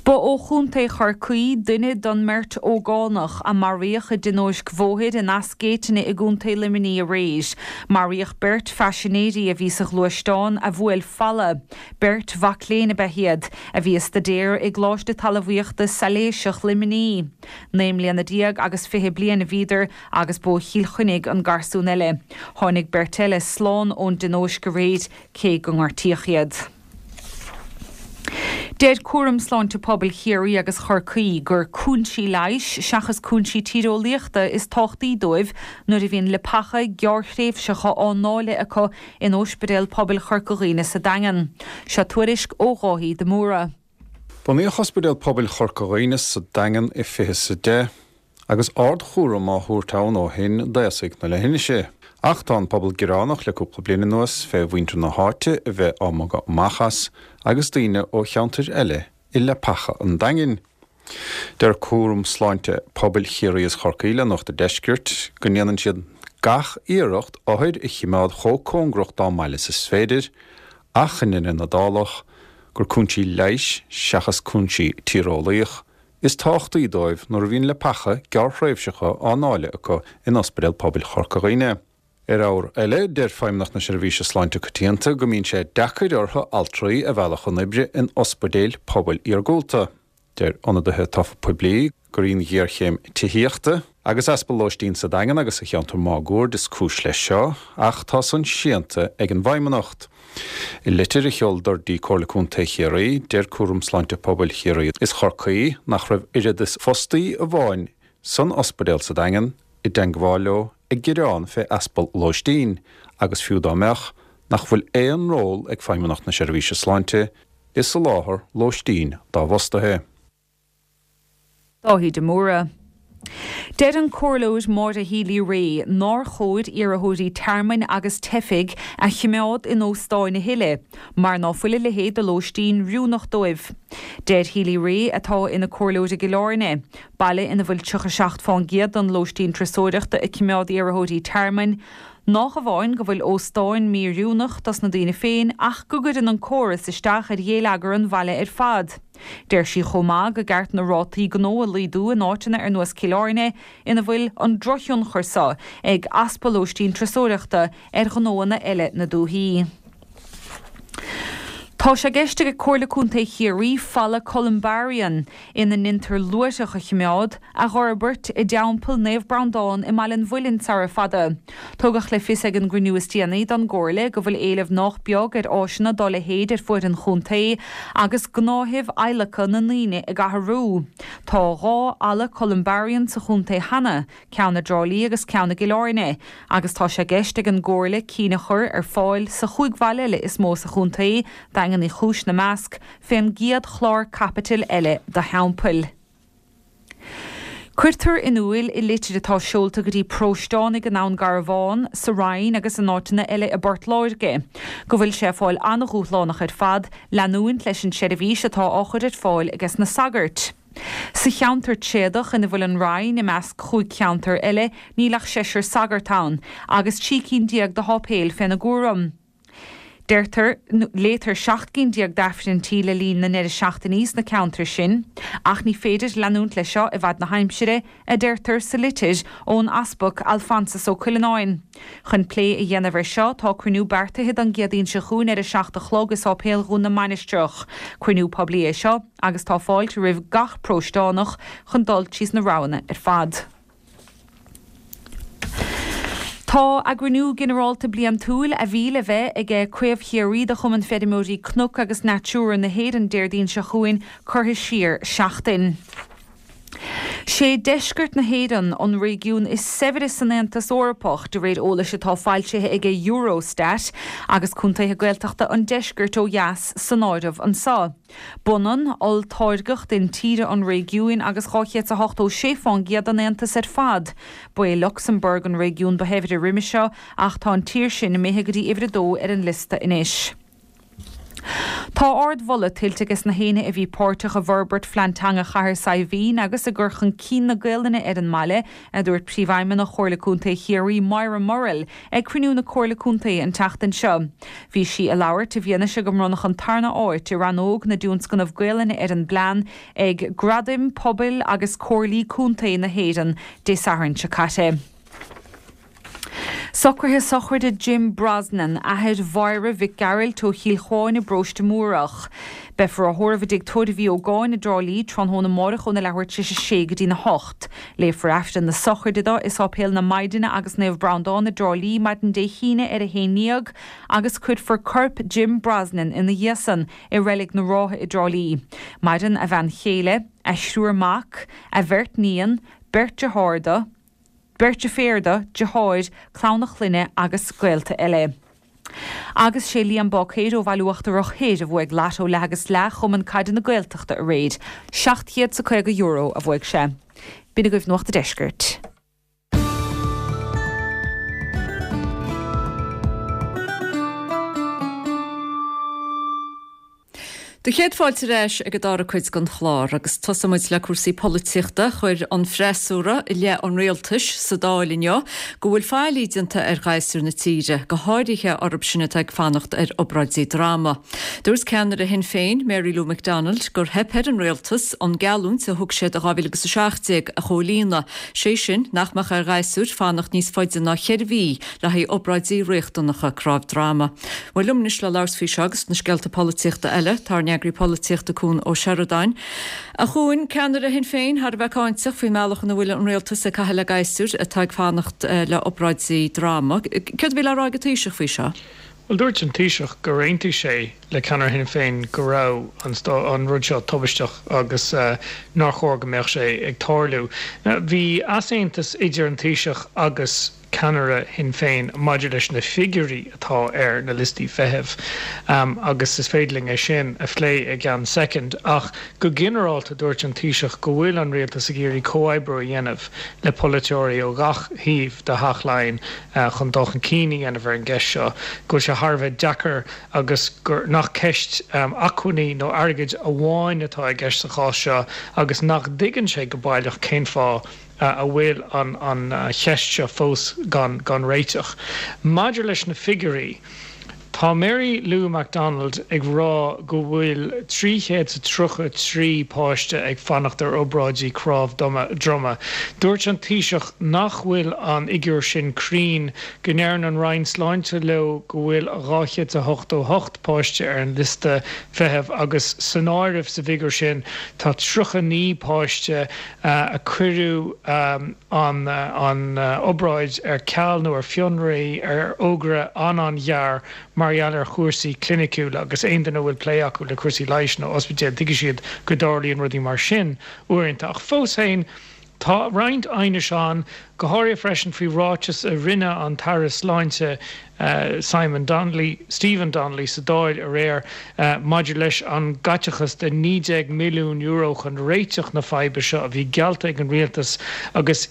Ba ó Chontae Chorcaí duine den mbeirt ógánach a maraíodh i dtionóisc bhóthair in Eas Géitine i gContae Luimnigh aréir. Maraíodh beirt phaisinéirí a bhí sa ghluaisteán a bhuail falla. Beirt mhac léinn ab ea iad, a bhí ag staidéar i gColáiste Talmhaíochta Sailéiseach Luimnigh. 19 mbliana agus 20 bliain a bhíodar agus ba ó Chill Chainnigh an garsún eile. Tháinig beirt eile slán ón dtionóisc aréir cé go ngortaíodh iad. Deir Cúram Sláinte Pobail Chiarraí agus Chorcaí gur cúinsí leighis seachas cúinsí tíreolaíochta is tábhachtaí dóibh nuair a bhíonn leapacha gearrthréimhseacha á ndáileadh acu in Ospidéal Pobail Chorca Dhuibhne sa Daingean. Seo tuairisc ó Dháithí de Mórdha. Bunaíodh Ospidéal Pobail Chorca Dhuibhne sa Daingean i 2010 agus ardchúram á thabhairt ann ó shin d'aosaigh na leithinise. Ach tá an pobal gearánach le cúpla bliain anuas fé mhuintir na háite a bheith á mbogadh amach as agus daoine ó cheantair eile i leapacha an Daingin. Deir Cúram Sláinte Pobail Chiarraí is Chorcaí le Nuacht an Deiscirt go ndéanann siad gach iarracht othair a chimeád chomh cóngarach dá mbaile is is féidir ach i ndeireadh na dálach gur cúinsí leighis seachas cúinsí tíreolaíoch is tábhachtaí dóibh nuair a bhíonn leapacha gearrthréimhseacha á ndáileadh acu in Ospidéal Pobail Chorca Dhuibhne. Ar ábhar eile, deir Feidhmeannacht na Seirbhíse Sláinte Coitianta go mbíonn sé deacair orthu altraí a mhealladh chun oibre in ospidéil pobail iargúlta. Deir ionadaithe tofa poiblí gur í an ghéarchéim tithíochta agus easpa lóistín sa Daingean agus sa cheantar máguaird is cúis leis seo, ach tá san séanta ag an bhFeidhmeannacht. I litir a sheoladar dtí Comhairle Contae Chiarraí, deir Cúram Sláinte Pobail Chiarraí is Chorcaí nach raibh oiread is fostaí amháin san ospidéal sa Daingean i dteangmháil leo ag gearán fé easpa lóistín agus fiú dá mbeadh, nach bhfuil aon ról ag Feidhmeannacht na Seirbhíse Sláinte i soláthar lóistín dá bhfostaithe. Dáithí de Mórdha. Deir an Comhairleoir Maura Healy-Rae nár chóir iarrthóirí tearmainn agus teifigh a choimeád in óstáin a thuilleadh mar ná fuil a leithéid de lóistín oiriúnach dóibh. Deir Healy-Rae, atá ina comhairleoir i gCill Airne, baile ina bhfuil 37 fán gcéad den lóistín turasóireachta ag coimeád iarrthóirí tearmainn, Nách amháin go bhfuil óstáin mí-oiriúnach dos na daoine féin ach go gcuireann an córas isteach ar ghéilleagar an bhaile ar fad. Deir sí chomh maith go gceart na rátaí gnó a laghdú in áiteanna ar nós Cill Airne ina bhfuil an drochthionchar so ag easpa lóistín turasóireachta ar ghnóanna eile na dúthaí. Tá sé i gceist ag Comhairle Contae Chiarraí falla Columbarium, ina ndeintear luaithreach a chimeád, a dh'fhorbairt i dTeampall Naomh Breandán i mBaile an Mhuilinn sara fada. Tugadh le fios ag an gcruinniú is déanaí don gComhairle go bhfuil éileamh nách beag ar áiseanna dá leithéid ar fuaid an chontae agus gnáthaimh adhlactha na ndaoine ag athrú. Tá 2 fhalla Columbarium sa chontae cheana, ceann i dTrá Lí agus ceann i gCill Airne, agus tá sé i gceist ag an gComhairle cinn a chur ar fáil sa chúig bhaile eile is mó sa chontae, Daingean Uí Chúis 'na measc, fén gcéad chlár caipitil eile do theampaill. Cuirtear in úil i litir atá seolta go dtí paróisteánaigh i nDún Garbhán, sa Rinn agus in áiteanna eile i bPort Láirge, go bhfuil sé ag fáil an-dhúshlánach ar fad leanúint leis an tseirbhís atá á chur ar fáil ages na sagairt. Sa cheantar tréadach ina bhfuil an Rinn, i measc chúig cheantar eile, níl ach seisear sagart ann, agus 13 cinn de sháipéil féna gcúram. Deirtear, léitear 17 gcinn d'Aifrinntí le linn na ndeireadh seachtainí sna ceantair sin, ach ní féidir leanúint leis seo i bhfad na haimsire, a deirtear sa litir ón Easpag Alphonsus Ó Cuileanáin. Chun plé a dhéanamh ar seo, tá cruinniú beartaithe don gCéadaoin seo chugainn ar a 7 a chlog i Sáipéal Dhún na Mainistreach. Cruinniú poiblí é seo agus tá fáilte roimh gach paróisteánach chun dul tríos na roghanna ar fad. Tá a gcruinniú ginearálta bliantúil a bhí le bheith aige Craobh Chiarraí de Chumann Feirmeoirí Cnoc agus Natura na hÉireann Déardaoin seo chugainn curtha siar seachtain. Sé deisceart na hÉireann an réigiún is saibhre san Aontas Eorpach, de réir eolais atá foilsithe aige Eurostat, agus contaetha Gaeltachta an deiscirt ó dheas san áireamh anso. B'ionann olltáirgeacht intíre an réigiúin agus 286 fán gcéad den Aontas ar fad. Ba é Lucsamburg an réigiún ba shaibhre roimhe seo ach tá an tír sin imithe go dtí uimhir a dó ar an liosta anois. Tá ardmholadh tuillte ages na héinne a bhí páirteach i bhforbairt Phlean Teanga Chathair Saidhbhín agus i gcur chun cinn na Gaolainne ar an mbaile, a dúirt Príomhfheidhmeannach Chomhairle Contae Chiarraí, Moira Murrell, ag cruinniú na Comhairle Contae an tseachtain seo. Bhí sí ag labhairt i bhfianaise go mbronnadh an tarna áit i rannóg na dtionscnamh Gaolainne ar an bplean ag Gradaim Pobail agus Comhairlí Contae na hÉireann Dé Sathairn seo caite. Socruithe sochraide Jim Brosnan, athair Mháire Mhic Gearailt ó Chill Chuáin i bParóiste Múrach. Beifear á thórramh i dTigh Tórraimh Uí Ógáin i dTrá Lí tráthnóna amáireach óna leathuair tar éis a sé go dtína hocht. Léifear Aifreann na sochraide dó i Sáipéal na Maighdine agus Naomh Breandán i dTrá Lí maidin Dé hAoine ar a haon ndéag agus cuirfear corp Jim Brosnan ina dhiaidh san i Reilig na Rátha i dTrá Lí. Maireann a bhean chéile, a thriúr mac, a bheirt níon, beirt dearthár dó, Beirt deirféar dó, deartháir, clann a chlainne agus gaolta eile. Agus sé Liam Báicéir ó Bhaile Uachtarach Thoir a bhuaigh Lotto Leath agus Leath Chumann Caide na Gaeltachta aréir. €750 a bhuaigh sé. B'in agaibh Nuacht a' Deiscirt. Do chéad fáilte ar ais ag an dara cuid den chlár agus tosóidh muid le cúrsaí polaitíochta. Chuir an freasúra i leith an rialtais sa Dáil inniu go bhfuil faillí déanta ar ghasúir na tíre, go háirithe orthu sin atá ag fanacht ar obráidí droma. Dúirt ceannaire Shinn Féin, Mary Lou McDonald, gur theip ar an rialtas an geallúint a thug siad i 2017 a chomhlíonadh, sé sin nach mbeadh ar ghasúir fanacht níos faide ná cheithre mhí le haghaidh obráidí riachtanacha cnámh droma. Bhuel, liom anois le labhairt faoi seo agus na scéalta polaitíochta eile, tá ár n-eagraí polaitíochta Cuan Ó Seireadáin. A Chuain, ceannaire Shinn Féin thar a bheith cáinteach faoin mbealach ina bhfuil an rialtas ag caitheamh le gasúir atá ag fanacht le obráidí droma. Céard a bhí le rá ag an Taoiseach faoi seo? Bhuel, dúirt an Taoiseach gur aontaigh sé le ceannaire Shinn Féin go raibh an rud seo tubaisteach agus nár chóir go mbeadh sé ag tarlú. Bhí easaontas idir an Taoiseach agus ceannaire Shinn Féin maidir leis na figiúirí atá ar na liostaí feithimh agus is féidir linn é sin a phlé i gceann soicind ach go ginearálta dúirt an Taoiseach go bhfuil an rialtas ag iarraidh comhoibriú a dhéanamh le polaiteoirí ó gach thaobh de Theach Laighean chun dul chun cinn a dhéanamh ar an gceist seo, go bhfuil sé thar a bheith deacair agus gur nach ceist acmhainní nó airgid amháin atá i gceist sa chás seo agus nach dtuigeann sé go baileach cén fáth a bhfuil an cheist seo fós gan réiteach. Maidir leis na figiúirí, tá Mary Lou McDonald ag rá go bhfuil 333 páiste ag fanacht ar obráidí cnámh droma. Dúirt an Taoiseach nach bhfuil an fhigiúr sin cruinn, go ndeireann an Roinn Sláinte leo go bhfuil 288 páiste ar an liosta feithimh agus san áireamh sa bhfigiúr sin tá 39 páiste a cuireadh an obráid ar ceal nó ar fionraí ar fhógra an-an-ghearr mar gheall ar chúrsaí cliniciúla agus aon duine a bhfuil plé acu le cúrsaí leighis nó ospidéil tuigfidh siad go dtarlaíonn rudaí mar sin uaireanta. Ach fós féin, tá roinnt aighnis ann, go háirithe freisin faoi ráiteas a rinne an tAire Sláinte, Simon Donnelly, Stephen Donnelly sa Dáil aréir maidir leis an gcaiteachas de €19 milliún chun réiteach na faidhbe seo a bhí geallta ag an rialtas agus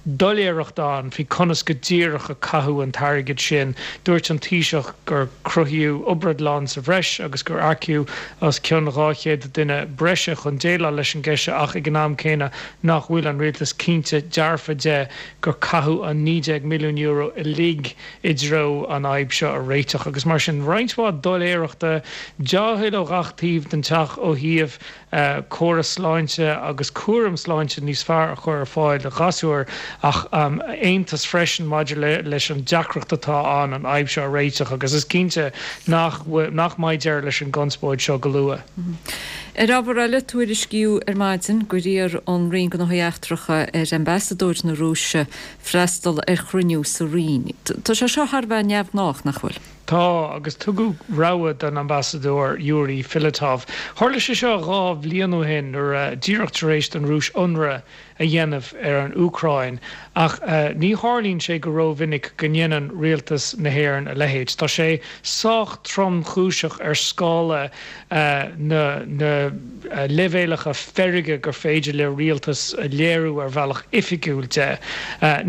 doiléireacht ann faoi conas go díreach a caitheadh an t-airgead sin. Dúirt an Taoiseach gur cruthaíodh obráidlann sa bhreis agus gur earcaíodh os cionn 200 duine breise chun déileáil leis an gceist seo ach ag an am céanna nach bhfuil an rialtas cinnte dearfa de gur caitheadh an €19 milliún uilig i dtreo an fhadhb seo a réiteach agus mar sin roinnt mhaith doiléireachta, dea-thoil ó ghach taobh den teach ó thaobh córas sláinte agus cúram sláinte níos fearr a chur ar fáil do ghasúir ach aontas freisin maidir leis an deacracht atá ann an fhadhb seo a réiteach agus is cinnte nach nach mbeidh deireadh leis an gconspóid seo go luath. Ar ábhar eile, tuairiscíodh ar maidin gur iarr an Roinn Gnóthaí Eachtracha ar Ambasadóir na Rúise freastal ar chruinniú sa Roinn. Tá sé seo thar a bheith neamhghnách, nach bhfuil? Tá, agus tugadh rabhadh don Ambasadóir Yuri Filatov. Tharla sé seo 2 bhliain ó shin nuair a, díreach tar éis don Rúis ionradh a dhéanamh ar an Úcráin, ach ní tharlaíonn sé go rómhinic go ndéanann rialtas na hÉireann a leithéid. Tá sé sách tromchúiseach ar scála na na leibhéalacha feirge gur féidir le rialtas a léiriú ar bhealach oifigiúil de.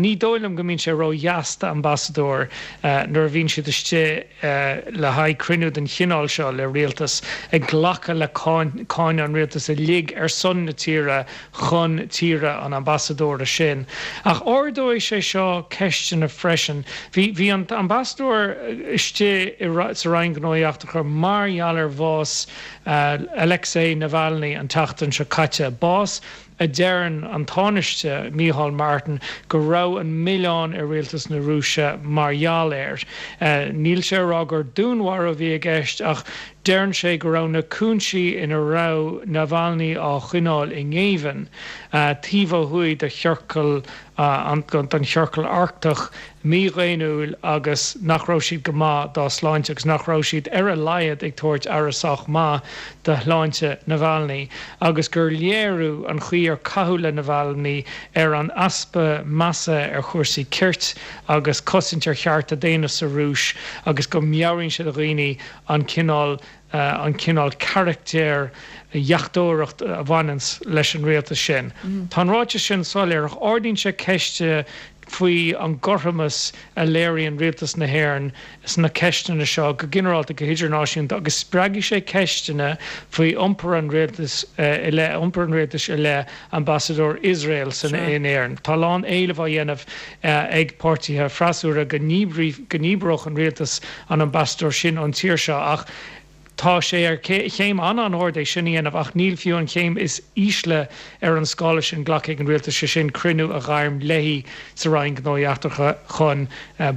Ní dóigh liom go mbíonn sé ródheas d'ambasadóir nuair a bhíonn siad istigh. Le haghaidh cruinniú den chineál seo le rialtas, ag glacadh le cáineadh an rialtais uilig ar son na tíre chun tíre an ambasadóra sin. Ach ardóidh sé seo ceisteanna freisin. Bhí bhí an t-ambasadóir istigh sa Roinn Gnóthaí Eachtracha mar gheall ar bhás Alexei Navalny an tseachtain seo caite, bás a deireann an Tánaiste Micheál Martin go raibh an milleán ar rialtas na Rúise mar gheall air. Níl sé a rá gur dúnmharú a bhí i gceist ach deireann sé go raibh na cúinsí ina raibh Navalny á choinneáil i ngéibheann taobh ó thuaidh de chiorcal den Chiorcal Arctach mídhaonnúil agus nach raibh siad go maith dá shláinte agus nach raibh siad ar a laghad ag tabhairt aire sách maith do shláinte Navalny agus gur léiriú an chaoi ar caitheadh le Navalny ar an easpa measa ar chúrsaí cirt agus cosaint ar chearta daonna sa Rúis agus go meabhraíonn sé do dhaoine an cineál an cineál carachtair dheachtóireacht a bhaineanns leis an rialtas sin. Tá an ráiteas sin soiléir ach ardaíonn sé ceist faoi an gcothromas a léiríonn rialtas na hÉireann sna ceisteanna seo go ginearálta, go hidirnáisiúnta agus spreagfaidh sé ceisteanna faoi iompar an rialtais i leith iompar an rialtais i leith ambasadóir Iosrael san in Éirinn. Tá a lán éileamh á dhéanamh ag páirtithe freasúra go ndíbreodh an rialtas an ambasadóir sin ón tír seo ach tá sé ar chéim an-an-ard é sin a dhéanamh ach níl fiú an chéim is ísle ar an scála sin glactha ag an rialtas, sé sin cruinniú a ghairm léi sa Roinn Gnóthaí Eachtracha chun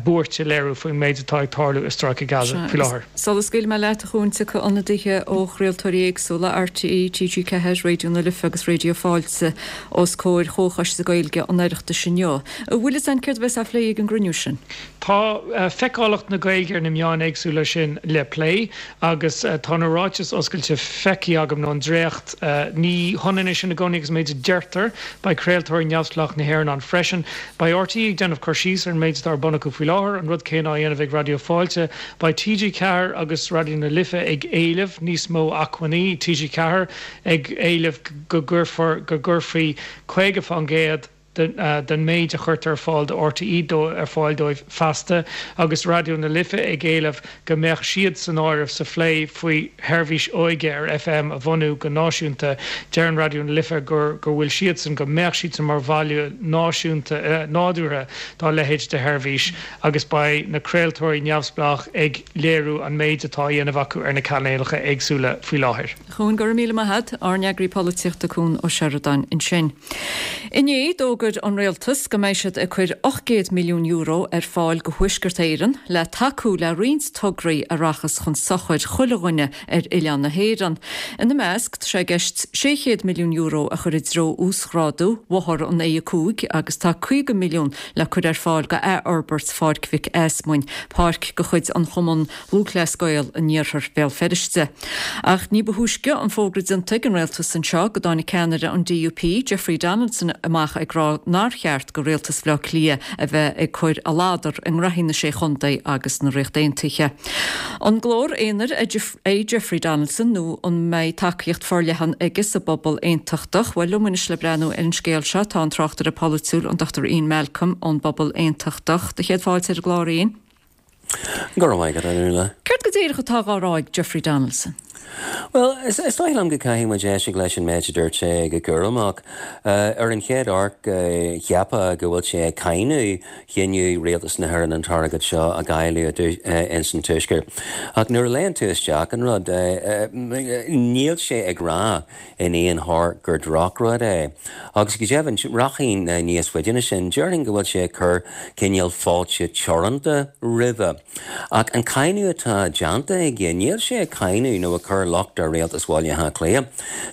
buairt a léiriú faoin méid atá ag tarlú i Stráice Gaza faoi láthair. Sula scaoilfidh mé leat, a Chuain, tiocfaidh ionadaithe ó chraoltóirí éagsúla, RTÉ, TG4, Raidió na Life agus Raidió Fáilte, os comhair Chomhchoiste Gaeilge an Oireachtais inniu. An bhfuil fhios a'inn céard a bheas á phlé ag an gcruinniú sin? Tá feiceálacht na Gaeilge ar na meáin éagsúla sin le plé agus tá na ráitis oscailte feicthe agam, nó an dréacht. Ní hionann é sin i gcónaí agus an méid a deirtear. Beidh craoltóirí neamhspleách na hÉireann ann freisin. Beidh RTÉ ag déanamh cur síos ar an méid atá ar bun acu faoi láthair, an rud céanna á dhéanamh ag Raidió Fáilte. Beidh TG4 agus Raidió na Life ag éileamh níos mó acmhainní, TG4 ag éileamh go gcuirfear, go gcuirfí 50%, den méid a chuirtear ar fáil do RTÉ ar fáil dóibh feasta, agus Raidió na Life ag éileamh go mbeadh siad san áireamh sa phlé faoi sheirbhís óige ar FM a bhunú go náisiúnta. Deireann Raidió na Life gur go bhfuil siadsan, go mbeadh siadsan mar bhaile náisiúnta nádúrtha dá leithéid de sheirbhís agus beidh na craoltóirí neamhspleách ag léiriú an méid atá á dhéanamh acu ar na cainéalacha éagsúla faoi láthair. Cuan, go raibh míle maith a't. Ár n-eagraí polaitíochta Cuan Ó Seireadáin ansin. Inné, d'fhógair an Rialtas go mbeidh siad ag cur €800 milliún ar fáil go Thuaisceart Éireann le tacú le roinnt tograí a rachas chun sochair chuile dhuine ar oileán na hÉireann. Ina measc, tá sé i gceist €600 milliún a chur i dtreo uasghrádú bhóthar an A5 agus tá 50 milliún le cur ar fáil go athfhorbairt Pháirc Mhic Easmuinn, páirc de chuid an Chumann Lúthchleas Gael in iarthar Bhéal Feirste. Ach ní ba thúisce an fógra déanta ag an rialtas anseo go dtáinig ceannaire an DUP, Jeffrey Donaldson amach ag rá nár cheart go rialtas Bhaile Átha Cliath a bheith ag cur a ladar i ngraithí na Sé Chontae agus na Ríochta Aontaithe. An glór aonair é Jeffrey Donaldson nó an mbeidh tacaíocht forleathan aige sa bpobal aontachtach? Bhuel, liom anois le breathnú ar an scéal seo tá an tráchtaire polaitiúil, an Dr Ian Malcolm ón bPobal Aontachtach. Do chéad fáilte ar an gclár, Ian. Go raibh maith agat, a Fhionnuala. Céard go díreach atá dhá rá ag Jeffrey Donaldson? Bhuel, is dóigh liom go gcaithfidh muid éisteacht leis an méid a dúirt sé go cúramach. Ar an chéad amharc, cheapfá go bhfuil sé ag cáineadh chinneadh Rialtas na hÉireann an t-airgead seo a dháileadh ins an Tuaisceart. Ach nuair a léann tú isteach an rud, níl sé ag rá in aon chor gur drochrud é. Agus go deimhin, rachainn níos faide ná sin, déarfainn go bhfuil sé ag cur cineál fáilte teoranta roimhe. Ach an cáineadh atá déanta aige, níl sé ag cáineadh nó ag cur locht ar Rialtas Bhaile Átha Cliath.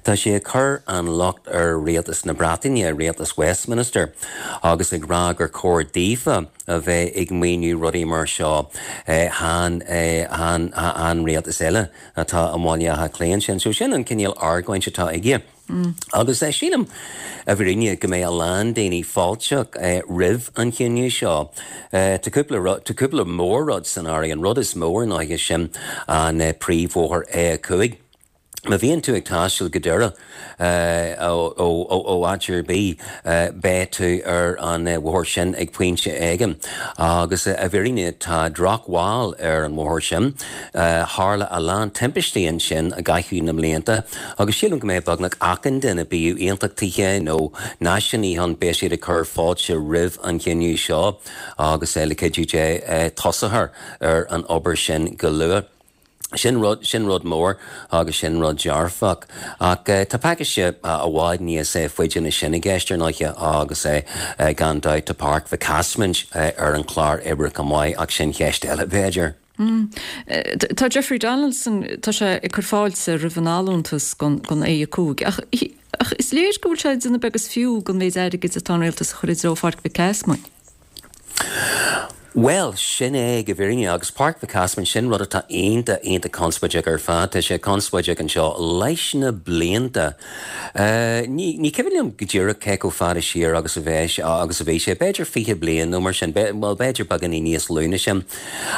Tá sé ag cur an locht ar Rialtas na Breataine, Rialtas Westminster, agus ag rá gur chóir daofa a bheith ag maoiniú rudaí mar seo, chan, chan, an rialtas eile. atá i mBaile Átha Cliath ansin. So sin an cineál argóint atá aige. Agus sílim, i bhfírinne, go mbeidh a lán daoine fáilteach roimh an chinneadh seo. Tá cúpla rud, tá cúpla mór-rud san áireamh. An rud is mó ar ndóighe sin an príomhbhóthar A5. Má bhíonn tú ag taisteal go Doire ó áit ar bith, beidh tú ar an bhóthar sin ag pointe éigin. Agus i bhfírinne tá drochbhail ar an bhóthar sin. Tharla a lán timpistí ansin i gcaitheamh na mblianta agus sílim go mbeidh beagnach achan duine, bíodh aontachtaithe nó náisiúnaithe ann, beidh siad ag cur fáilte roimh an chinneadh seo agus le cuidiú Dé tosófar ar an obair sin go luath. Sin rud, sin rud mór agus sin rud dearfach. Ach tá pacáiste i bhfad níos faide ná sin i gceist ar ndóighe agus gan dabht tá Páirc Mhic Easmaint ar an chlár oibre chomh maith ach sin cheist eile b'fhéidir. Tá Jeffrey Donaldson, tá sé ag cur fáilte roimh an allúntas don A5 ach ach is léir go bhfuil sé ag déanamh beag is fiú den mhéid airgid atá an rialtas a chur i dtreo Pháirc Mhic Easmainn. Bhuel, sin é go bhfírinne, agus Páirc Mhic Easmainn, sin rud atá iontach, iontach conspóideach ar fad. Tá sé conspóideach anseo leis na blianta. Ní, ní cuimhin liom go díreach cé chomh fada siar agus a bheidh, agus a bhí sé, b'fhéidir 20 bliain nó mar sin, bhuel, b'fhéidir beagáinín níos lú ná sin.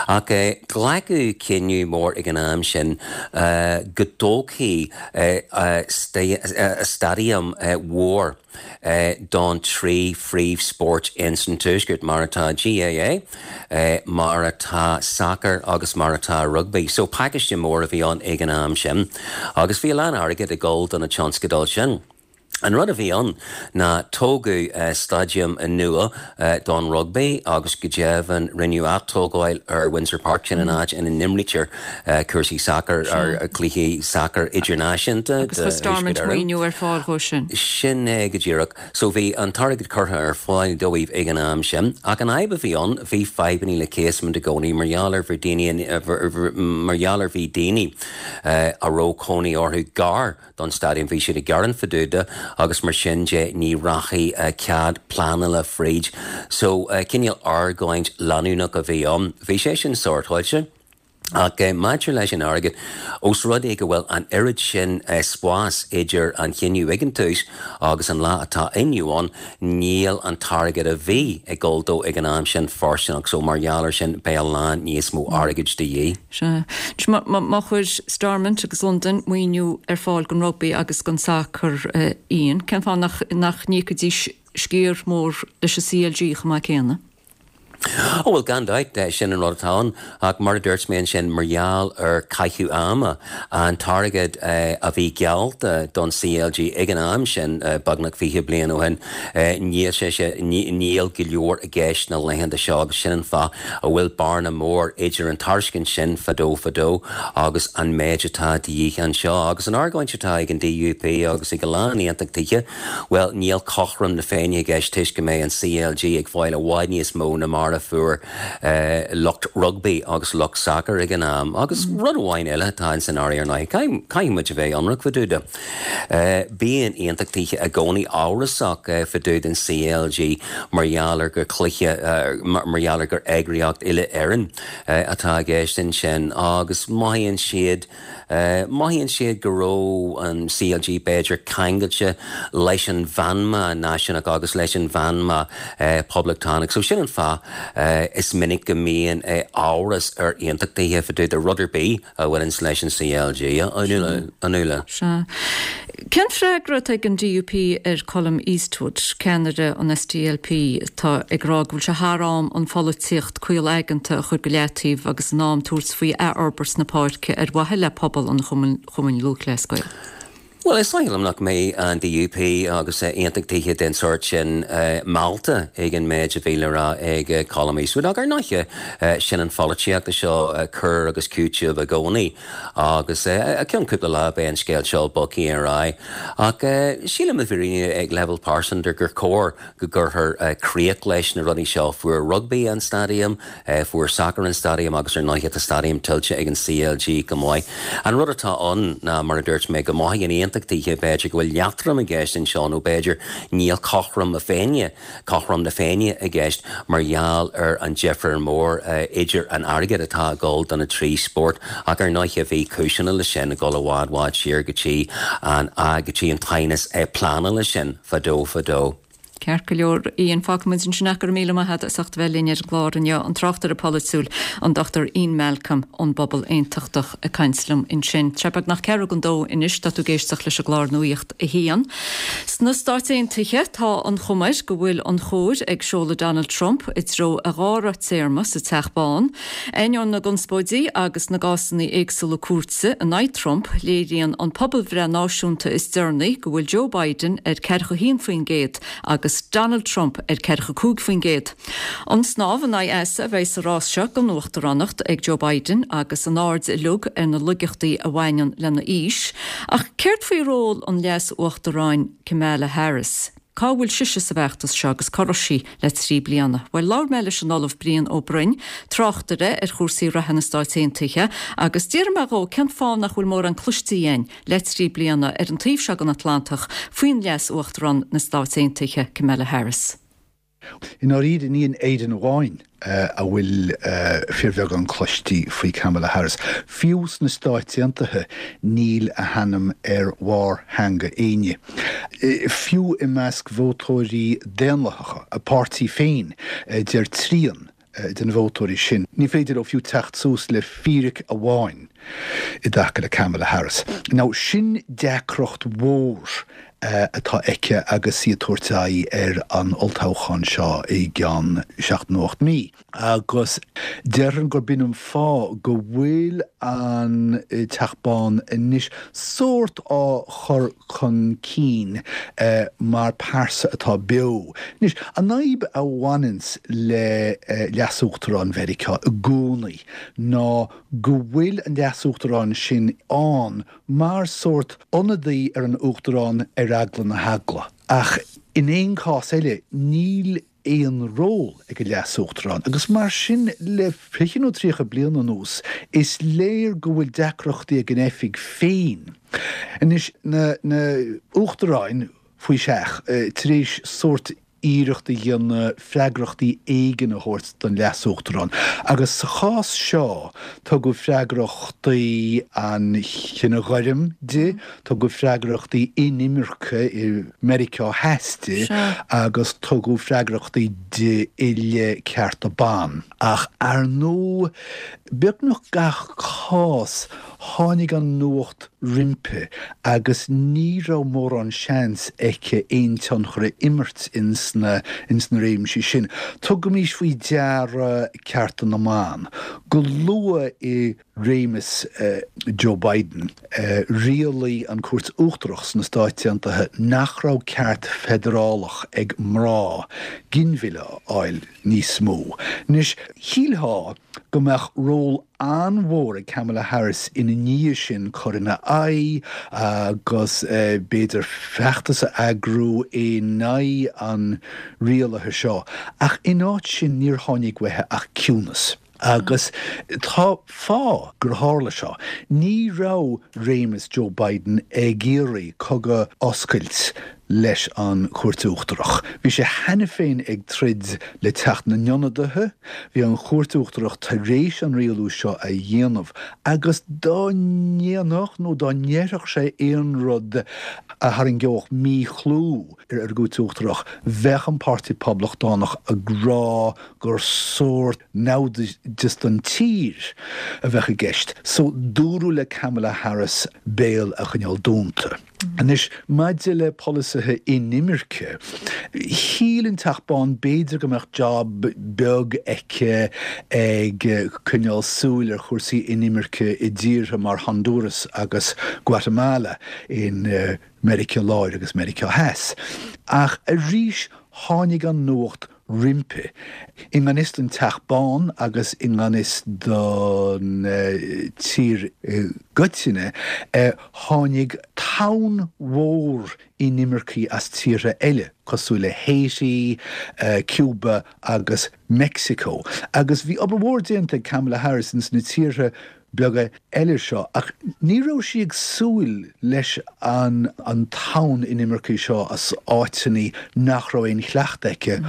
Ach glacadh cinneadh mór ag an am sin go dtógfaí staidiam mhór, don trí phríomhspórt ins an Tuaisceart, mar atá GAA, mar atá sacar agus mar atá rugbaí. So pacáiste mór a bhí ann ag an am sin agus bhí a lán airgid ag dul do na tionscadail sin. An rud a bhí ann ná tógadh staidiam nua don rugbaí agus go deimhin rinneadh atógáil ar Windsor Park, sin an áit ina n-imrítear cúrsaí sacair, cluichí sacair idirnáisiúnta Agus chuir Stormont maoiniú ar fáil dhó sin. Sin é go díreach. So bhí an t-airgead curtha ar fáil dóibh ag an am sin. Ach an fhadhb a bhí ann, bhí fadhbannaí le Casement i gcónaí mar gheall ar bhí daoine, mar gheall ar bhí daoine a raibh cónaí orthu gar don staidiam. Bhí siad ag gearán fá dtaobh de agus mar sin de ní rachaidh cead pleanála fríd. So cineál argóint leanúnach a bhí ann. Bhí sé sin sórtáilte. Ach maidir leis an airgead, ós rud é go bhfuil an oiread sin spáis idir an chinneadh ag an tús agus an lá atá inniu ann, níl an t-airgead a bhí ag dul dó ag an am sin fóirsteanach so mar gheall air sin beidh a lán níos mó airgid de dhíth. Sea. Má chuir Stormont agus Londain maoiniú ar fáil don rugbaí agus don sacar, Ian, cén fáth nach n-íocfaidís sciar mór leis an CLG chomh maith céanna? Ó bhuel, gan dabht, sin an rud atá ann. Ach mar a dúirt mé ansin, mar gheall ar caitheamh ama, an t-airgead a bhí geallta don CLG ag an am sin, beagnach 20 bliain ó shin, níl sé sé, níl go leor i gceist na laethanta seo agus sin an fáth a bhfuil bearna mór idir an tairiscint sin fadó fadó agus an méid atá de dhíth anseo. Agus an argóint atá ag an DUP agus ag a lán aontachtaithe, Bhuel, níl cothrom na Féinne i gceist toisc go mbeidh an CLG ag fáil i bhfad níos mó ná mar a fuair lucht rugbaí agus lucht sacair ag an am. Agus rud amháin eile atá ins an áireamh ar ndóigh, caithfidh muid a bheith ionraic fá dtaobh de. Bíonn aontachtaithe i gcónaí amhrasach fá dtaobh den CLG mar gheall ar gur cluiche, mar gheall ar gur eagraíocht uile-Éireann atá i gceist ansin agus mothaíonn siad, Mothaíonn siad go raibh an CLG b'fhéidir ceangailte leis an mheanma náisiúnach agus leis an mheanma poblachtánach. So sin an fáth is minic go mbíonn amhras ar aontachtaithe fá dtaobh de rud ar bith a bhaineanns leis an CLG, a Nuala. Sea. Cén freagra atá ag an DUP ar Colum Eastwood, ceannaire an SDLP, atá ag rá go bhfuil sé thar am an pholaitíocht caol aigeanta a chur go leataobh agus in am tabhairt faoi athfhorbairt na páirce ar mhaithe le pobal an Chumainn Lúthchleas Gael? Bhuel, is dóigh liom nach mbeidh an DUP agus aontachtaithe den sórt sin meallta ag an méid a bhí le rá ag Colum Eastwood. Ach ar ndóighe, sin an pholaitíocht seo, cur agus cúiteamh i gcónaí. Agus i gceann cúpla lá beidh an scéal seo bogtha ar aghaidh. Ach sílim i bhfírinne ag leibhéal pearsanta gur chóir go gcuirfear críoch leis na rudaí seo. Fuair rugbaí an staidiam, fuair sacar an staidiam agus ar ndóighe tá staidiam tuillte ag an CLG go maith. An rud atá ann ná, mar a dúirt mé, go mothaíonn aontachtaithe b'fhéidir go bhfuil leatrom i gceist anseo nó b'fhéidir níl cothrom na Féinne, cothrom na Féinne i gceist mar gheall ar an difear mór idir an airgead atá ag dul do na trí spórt ach ar ndóighe bhí cúiseanna leis sin ag dul i bhfad bhfad siar go dtí an go dtí an t-aighneas pleanála sin fadó fadó. Ceart go leor, Ian, fágfaidh muid ansin é. Go raibh míle maith agat as ucht a bheith linn ar an gclár inniu. An tráchtaire polaitiúil, an Dr Ian Malcolm ón bPobal Aontachtach ag caint liom ansin. Tá sé beagnach ceathrú don dó anois, tá tú ag éisteacht leis an gclár Nuacht a hAon. Sna Stáit Aontaithe, tá an chuma air go bhfuil an chóir ag seoladh Donald Trump i dtreo a dhara téarma sa Teach Bán. Ainneoin na gconspóidí agus na gcásanna éagsúla cúirte in aghaidh Trump, léiríonn an pobalbhreith náisiúnta is deireanaí go bhfuil Joe Biden ar 41% agus Donald Trump ar 45%. An snámh in aghaidh easa a bheidh sa rás seo don uachtaránacht ag Joe Biden agus an aird uilig ar na laigeachtaí a bhaineann lena aois. Ach céard faoi ról an Leas-Uachtaráin Kamala Harris? Cá bhfuil sise sa bhfeachtas seo agus cá raibh sí le 3 bliana? Bhuel, labhair mé leis an Ollamh Brian Ó Broin, tráchtaire ar chúrsaí reatha na Stáit Aontaithe, agus d'fhiafraigh mé dhó cén fáth nach bhfuil mórán cloiste againn le 3 bliana ar an taobh seo den Atlantach faoin Leas-Uachtarán na Stáit Aontaithe, Kamala Harris. I ndáiríre, ní in Éirinn amháin a bhfuil fíorbheagán cloistí faoi Kamala Harris. Fiú sna Stáit Aontaithe níl a hainm ar bharr theanga éinne. Fiú i measc vótóirí Daonlathacha a páirtí féin, deir trian de na vótóirí sin, ní féidir leo fiú teacht suas le fíric amháin i dtaca le Kamala Harris. Now, sin deacracht mhór atá aici agus í ag tabhairt aghaidh ar an olltoghchán seo i gceann seacht nó 8 mí. Agus déarfainn gurb in an fáth go bhfuil an Teach Bán anois sórt á chur chun cinn mar pearsa atá beo. Anois, an fhadhb a bhaineanns le Leas-Uachtarán Mheiriceá i gcónaí ná go bhfuil an Leas-Uachtarán sin ann mar sórt ionadaí ar an Uachtarán ar eagla na heagla. Ach in aon chás eile, níl aon ról ag an Leas-Uachtarán agus mar sin le fiche nó 30 bliain anuas is léir go bhfuil deacrachtaí ag an oifig féin. Anois, na hUachtaráin faoi seach, tar éis sórt iarracht a dhéanamh freagrachtaí éigin a thabhairt don Leas-Uachtarán agus sa chás seo tugadh freagrachtaí an chine ghoirm di, Tugadh freagrachtaí inimirce i Meiriceá Theas di agus tugadh freagrachtaí di i leith cearta ban. Ach ar ndóigh, beagnach gach cás, tháinig an nuacht roimpi agus ní raibh mórán seans aici aon tionchar a imirt ins na réimsí sin. Tugaimís faoi deara cearta na mban. Go luath i réimeas Joe Biden, rialaigh an Cúirt Uachtarach sna Stáit Aontaithe nach raibh ceart feidearálach ag mná ginmhilleadh a fháil níos mó. Anois, shílfeá go mbeadh ról an-mhór ag Kamala Harris ina ndiaidh sin cur ina aghaidh agus b'fhéidir feachtas a eagrú in aghaidh an rialaithe seo, ach in áit sin níor tháinig uaithi ach ciúnas. Agus tá fáth gur tharla seo. Ní raibh réimeas Joe Biden ag iarraidh cogadh a oscailt leis an Chúirt Uachtarach. Bhí sé cheana féin ag troid le Teach na nIonadaithe, bhí an Chúirt Uachtarach tar éis an rialú seo a dhéanamh agus dá ndéanfadh nó dá ndéarfadh sé aon rud a tharraingeodh míchlú ar an gCúirt Uachtarach, bheadh an Páirtí Poblachtánach ag rá gur sórt naimhdeas don tír a bheadh i gceist. So dúradh le Kamala Harris béal a choinneáil dúnta. Anois, maidir le polasaithe inimirce, shíl an Teach Bán b'fhéidir go mbeadh job beag aici ag coinneáil súil ar chúrsaí inimirce i dtíortha mar Honduras agus Guatemala in Meiriceá Láir agus Meiriceá Theas. Ach arís tháinig an nuacht roimpi. I ngan fhios don Teach Bán agus i ngan fhios don tír i gcoitinne, tháinig tonn mhór inimircigh as tíortha eile, cosúil le Haiti, Cuba agus Meicsiceo. Agus bhí obair mhór déanta ag Kamala Harris ins na tíortha beaga eile seo, ach ní raibh sí ag súil leis an an tonn inimircigh seo as áiteanna nach raibh aon chleachtadh aici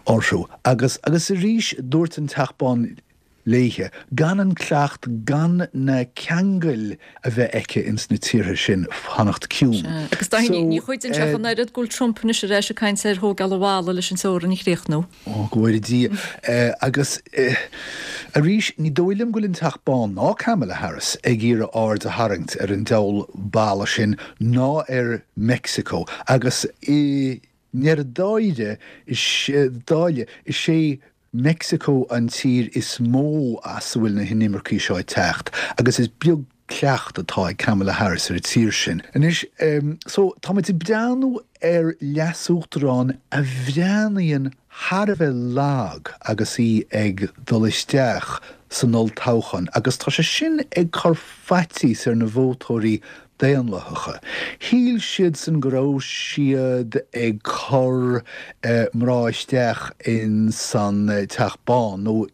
orthu. Agus, agus arís, dúirt an Teach Bán. léithe, gan an cleacht, gan na ceangail a bheith aici ins na tíortha sin, fanacht ciúin. Sea, agus Dáithí, So, ní chuidíonn sé ach an oiread go bhfuil Trump anois ar ais ag caint ar thógáil an bhalla leis an teorainn a chríochnú. Ó, go bhfóire Dia. Agus arís, ní dóigh liom go bhfuil an Teach Bán ná Kamala Harris ag iarraidh aird a tharraingt ar an diabhal balla sin ná ar Meicsiceo. Agus i ndeireadh dáire, dáile, is é Meicsiceo an tír is mó as a bhfuil na hinimircigh seo ag teacht agus is beag cleacht atá ag Kamala Harris ar an tír sin. Anois, so, tá muid ag breathnú ar leasuachtarán a bhreathnaíonn thar a bheith lag agus í ag dul isteach san olltoghchán agus tá sé sin ag cur faitíos ar na vótóirí Daonlathacha. Shíl siadsan go raibh siad ag cur mná isteach in san Teach Bán nó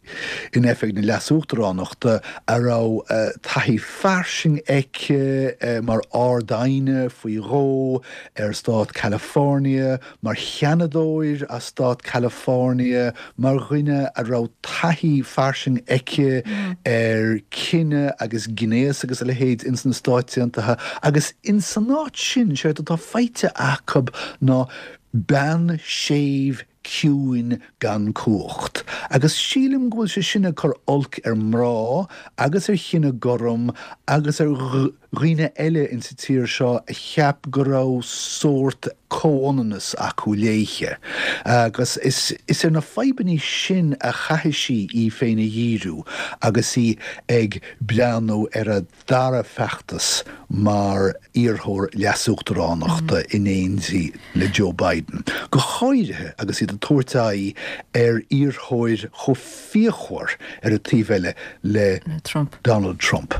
in oifig na leasuachtaránachta a raibh taithí fairsing aici mar Ard-Aighne faoi dhó ar stát California, mar sheanadóir as stát California, mar dhuine a raibh taithí fairsing aici ar cine agus gnéas agus a leithéid ins na Stáit Aontaithe agus ins an áit sin, séard atá faighte acu ná bean séimh ciúin gan cumhacht. Agus sílim go bhfuil sé sin ag cur olc ar mná agus ar chine gorm agus ar dhaoine eile insa tír seo a cheap go raibh sórt comhionannas acu léithe. Agus is ar na fadhbannaí sin a chaithfidh sí í féin a dhíriú agus í ag breathnú ar a dara feachtas mar iarrthóir leasuachtaránachta in éindí le Joe Biden, go háirithe agus iad ag tabhairt aghaidh ar iarrthóir chomh fíochmhar ar an taobh eile le Donald Trump.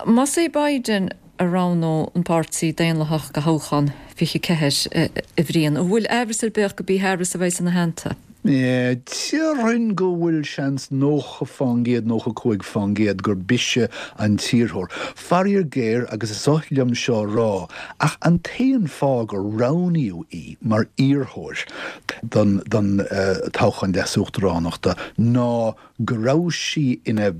Más é Biden a roghnódh an Páirtí Daonlathach do thoghchán 24, a Bhriain, an bhfuil aimhreas ar bith ach gurb í Harris a bheidh ina theannta? Déarfainn go bhfuil seans 90%, 95% gurb ise an t-iarrthóir. Faraor géar, agus is oth liom seo a rá, ach an t-aon fáth gur roghnaíodh í mar iarrthóir don toghchán leasuachtaránachta ná go raibh sí ina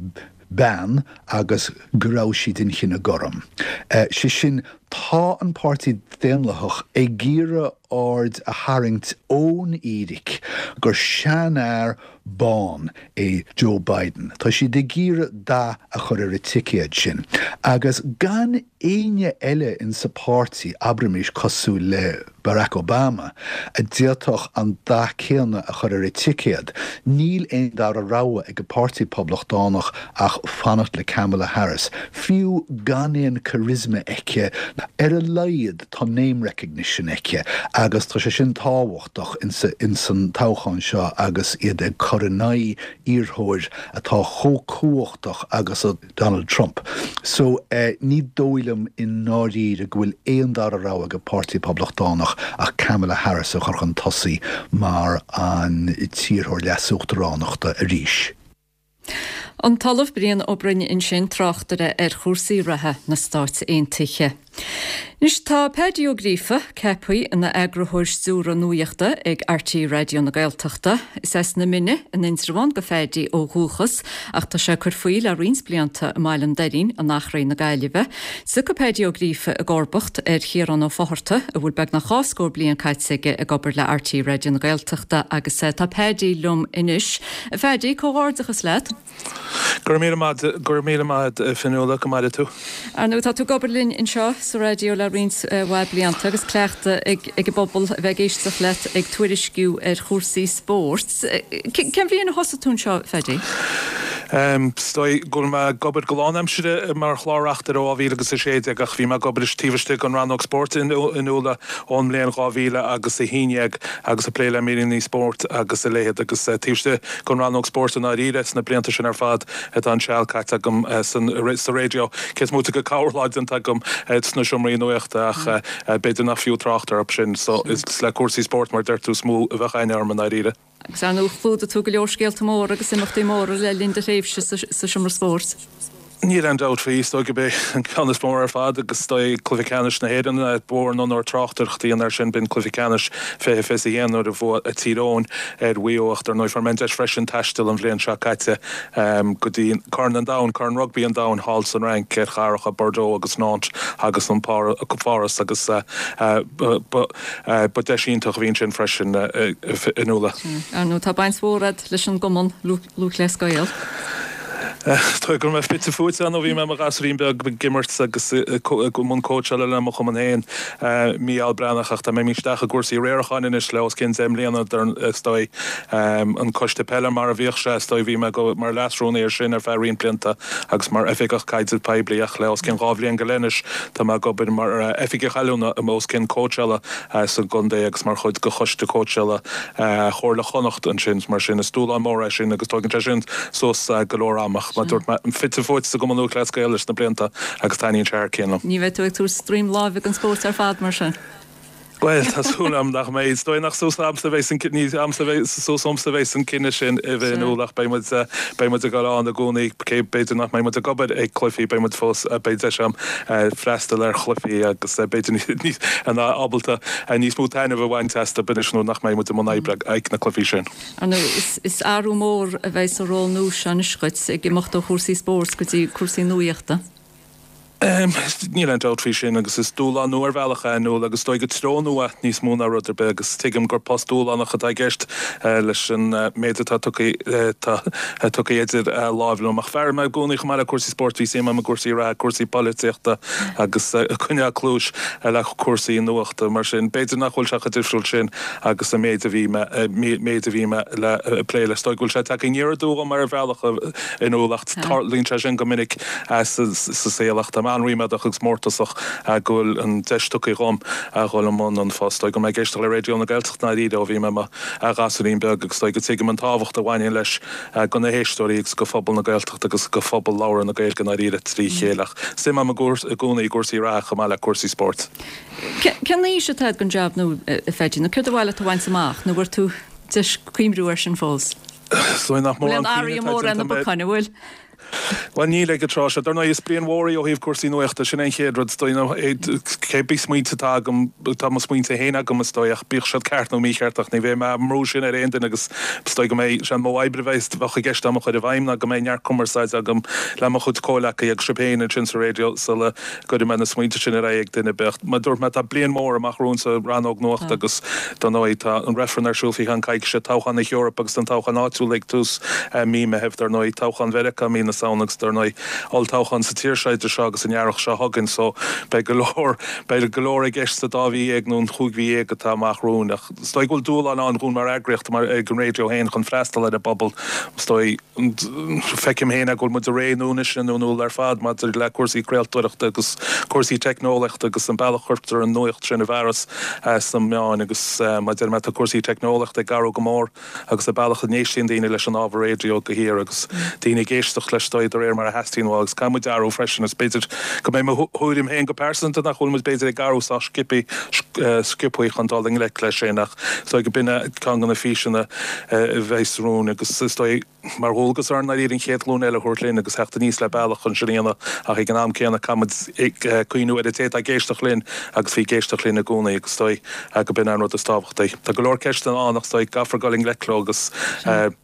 bean agus go raibh sí den chine gorm. Sé sin, tá an Páirtí Daonlathach ag iarraidh aird a tharraingt ón fhíric gur seanfhear bán é Joe Biden. Tá siad ag iarraidh dath a chur ar an ticéad sin. Agus gan éinne eile insa pháirtí, abraimis cosúil le Barack Obama, a d'fhéadfadh an dath céanna a chur ar an ticéad, níl aon dara rogha ag an Páirtí Poblachtánach ach fanacht le Kamala Harris, fiú gan aon charisma aici, ar a laghad tá name recognition aici agus tá sé sin tábhachtach insan toghchán seo agus iad ag cur in aghaidh iarrthóir atá chomh cumhachtach agus a Donald Trump. So, ní dóigh liom i ndáiríre go bhfuil aon dara rogha ag an Páirtí Poblachtánach ach Kamala Harris a chur chun tosaigh mar an t-iarrthóir leasuachtaránachta arís. An tOllamh Brian Ó Broin ansin, tráchtaire ar chúrsaí reatha na Stáit Aontaithe. Anois tá Paddy Ó Gríofa ceaptha ina eagarthóir stiúrtha nuachta ag RTÉ Raidió na Gaeltachta. Is as na Mine in Indreabhán do Phaddy ó dhúchas ach tá sé ag cur faoi le roinnt blianta i mBaile an Doirín in Achréidh na Gaillimhe. Tiocfaidh Paddy Ó Gríofa i gcomharbacht ar Chiarán Ó Fátharta a bhfuil beagnach dhá scór bliain caite aige ag obair le RTÉ Raidió na Gaeltachta agus tá Paddy liom anois. A Phaddy, comhghairdeachas leat. Go raibh míle maith, go raibh míle maith agat a Fionnuala, go maire tú. Ar ndóigh, tá tú ag obair linn anseo sa raidió le roinnt mhaith blianta agus cleachtadh ag ag an bpobal a bheith ag éisteacht leat ag tuairisciú ar chúrsaí spóirt. Cén bhliain a thosaigh tú anseo, a Phaddy? Is dóigh go bhfuil mé ag obair go lánaimseartha mar chlár-reachtaire ó 2016 ach bhí mé ag obair taobh istigh den rannóg spóirt a Fhionnuala ón mbliain 2011 agus ag plé le míreanna spóirt agus a leithéid agus taobh istigh den rannóg spóirt i ndáiríre sna blianta sin ar fad atá an seal caite agam sa raidió, cé is móite de corrlá déanta agam sna seomraí nuachta ach b'fhéidir nach fiú trácht orthu sin. So is le cúrsaí spóirt mar a deir tú is mó a bheadh aithne orm i ndáiríre. Agus ar ndóigh chlúdaigh tú go leor scéalta móra agus imeachtaí móra le linn do thréimhse sa seomra spóirt. Níl aon dabht faoi, is dóigh gurb é an ceann is mó ar fad agus is dóigh Cluiche Ceannais na hÉireann. Ba mhór an onóir tráchtaireacht a dhéanamh air sin, b'in Cluiche Ceannais 2021 nuair a bhuaigh Tír Eoghain ar Mhaigh Eo ach dar ndóigh fuair mé an deis freisin taisteal an bhliain seo caite go dtí Corn an Domhain, Corn Rugbaí an Domhain thall san Fhrainc ar chathracha Bordeaux agus Nantes agus an Pháras agus ba deis iontach a bhí ansin freisin a Nuala. Ar ndóigh tá baint mhór agat leis an gCumann Lúthchleas Gael. Is dóigh go raibh mé fite fuaite ann ó bhí mé i mo ghasúirín beag ag imirt agus i mbun cóitseála le mo chumann féin, Mícheál Breathnach, ach tá mé imithe isteach i gcúrsaí riaracháin anois le os cionn 10 mbliana, is dóigh. An coiste peile mar a bhíodh sé, is dóigh, bhí mé mar leasrúnaí air sin ar feadh roinnt blianta agus mar oifigeach caidrimh poiblí ach le os cionn dhá bhliain go leith anois tá mé ag obair mar oifigeach oiliúna os cionn cóitseála sa gcontae agus mar chuid de choiste cóitseála Chomhairle Chonnacht ansin. Mar sin, is dúshlán mór é sin agus tógann sé sin suas go leor ama. Ach mar a dúirt mé, fite fuaite sa gCumann Lúthchleas Gael leis na blianta agus taitníonn sé thar cionn liom. Ní bheidh tú ag tabhairt droim láimhe don spórt ar fad, mar sin? Bhuel, tá súil agam nach mbeidh. Is dóigh nach suas a'msa a bheas an, ní a'msa a bheas, suas uaimsa a bheas an cinneadh sin a bheith in iúl ach beidh muid, beidh muid ag dul ann i gcónaí. Cé, b'fhéidir nach mbeidh muid ag obair ag cluichí, beidh muid fós, beidh deis agam freastal ar chluichí agus b'fhéidir níos, ábalta níos mó taitneamh a bhaint astu anois nuair nach mbeidh muid i mbun oibre ag na cluichí sin. Ar ndóigh, is athrú mór a bheidh sa ról nua seo anois dhuit, ag imeacht ó chúrsaí spóirt go dtí cúrsaí nuaíochta. Níl aon dabht faoi sin agus is dúshlán nua ar bhealach é, a Nuala, agus is dóigh go treo nua níos mó ná rud ar bith agus tuigim gur post dúshlánach atá i gceist leis an méid atá tugtha tugtha idir láimh liom. Ach fear mé i gcónaí chomh maith le cúrsaí spóirt bhí suim agam i gcúrsaí reatha, cúrsaí polaitíochta agus coinneáil cluais le cúrsaí nuachta. Mar sin, b'fhéidir nach bhfuil sé chomh difriúil sin agus an méid a bhí mé méid a bhí mé le plé leis. Is dóigh go bhfuil sé tagtha aniar aduaidh orm ar bhealach a Nuala ach tarlaíonn sé sin go minic sa saol ach táim an-ríméadach agus mórtasach go bhfuil an deis tugtha dhom a dhul i mbun an phost. Is dóigh go raibh mé ag éisteacht le Raidió na Gaeltachta ndáiríre ó bhí mé i mo ghasúirín beag agus is dóigh go dtuigim an tábhacht a bhaineann leis go na héisteoirí agus go phobal na Gaeltachta agus go phobal labhartha na Gaeilge ndáiríre trí chéile ach suim agam i gcónaí i gcúrsaí reatha chomh maith le cúrsaí spóirt. Cén fhís atá agat don jab nua, a Pheaidí, nó céard ba mhaith leat a bhaint amach, nó an bhfuair tú deis cuimhniú air sin fós? Is dóigh nach mórán cuimhne atá déanta mé. An bhfuil? Bhuel, níl ag an tráth seo. Dar ndóigh, is bliain mhór í ó thaobh cúrsaí nuachta, sin é an chéad rud. Is dóigh, nó cé bith smaointe atá agam, tá mo smaointe féin agam, is dóigh, ach bíodh siad ceart nó mícheart, ach ní bheidh mé á mbrú sin ar aon duine agus is dóigh go mbeidh sé an modh oibre a bheidh, bheadh i gceist agam a chur i bhfeidhm ná go mbeidh neart cumarsáide agam le mo chuid comhleacaithe agus sibh féin ansin sa raidió sula gcuirfidh mé na smaointe sin ar aghaidh ag duine ar bith. Ach mar a dúirt mé, tá bliain mhór amach romhainn sa rannóg nuachta agus dar ndóigh tá an reifreann ar siúl faoi cheann coicíse, toghchán na hEorpa agus an toghchán áitiúil ag tús mí Meithimh, dar ndóigh, toghchán Mheiriceá mí na Samhna agus dar ndóigh olltoghchán sa tír seo idir seo agus an earrach seo chugainn. So beidh go leor, beidh go leor i gceist sa dá mhí dhéag nó an chúig mhí dhéag atá amach romhainn. Ach is dóigh go bhfuil dúshlán ann dhúinn mar eagraíocht, mar ag an raidió féin chun freastal ar an bpobal. Is dóigh. Feicim féin é go bhfuil muid i ré nua anois a Nuala ar fad maidir le cúrsaí craoltóireachta agus cúrsaí teicneolaíochta agus an bealach a chuirtear an nuacht sin i bhfearas sna meáin agus mar a deir mé tá cúrsaí teicneolaíochta ag athrú go mór agus an bealach a n-éistíonn daoine leis an ábhar raidió de shíor agus daoine ag éisteacht leis de réir mar a theastaíonn uathu agus caithfidh muid athrú freisin is b'fhéidir go mbeidh mo thuairim féin go pearsanta nach bhfuil muid b'fhéidir ag athrú sách sciobtha chun dul i ngleic leis sin ach is dóigh go b'in ceann de na físeanna a bheas romhainn agus is dóigh mar dhualgas orainn dáiríre an chéad ghlúin eile a thabhairt linn agus theacht aníos le bealach chun sin a dhéanamh ach ag an am céanna caithfimid cuimhniú ar an té atá ag éisteacht linn agus bhí ag éisteacht linn i gcónaí agus is dóigh go b'in an rud is tábhachtaí. Tá go leor ceisteanna ann ach is dóigh go gcaithfear dul i ngleic leo agus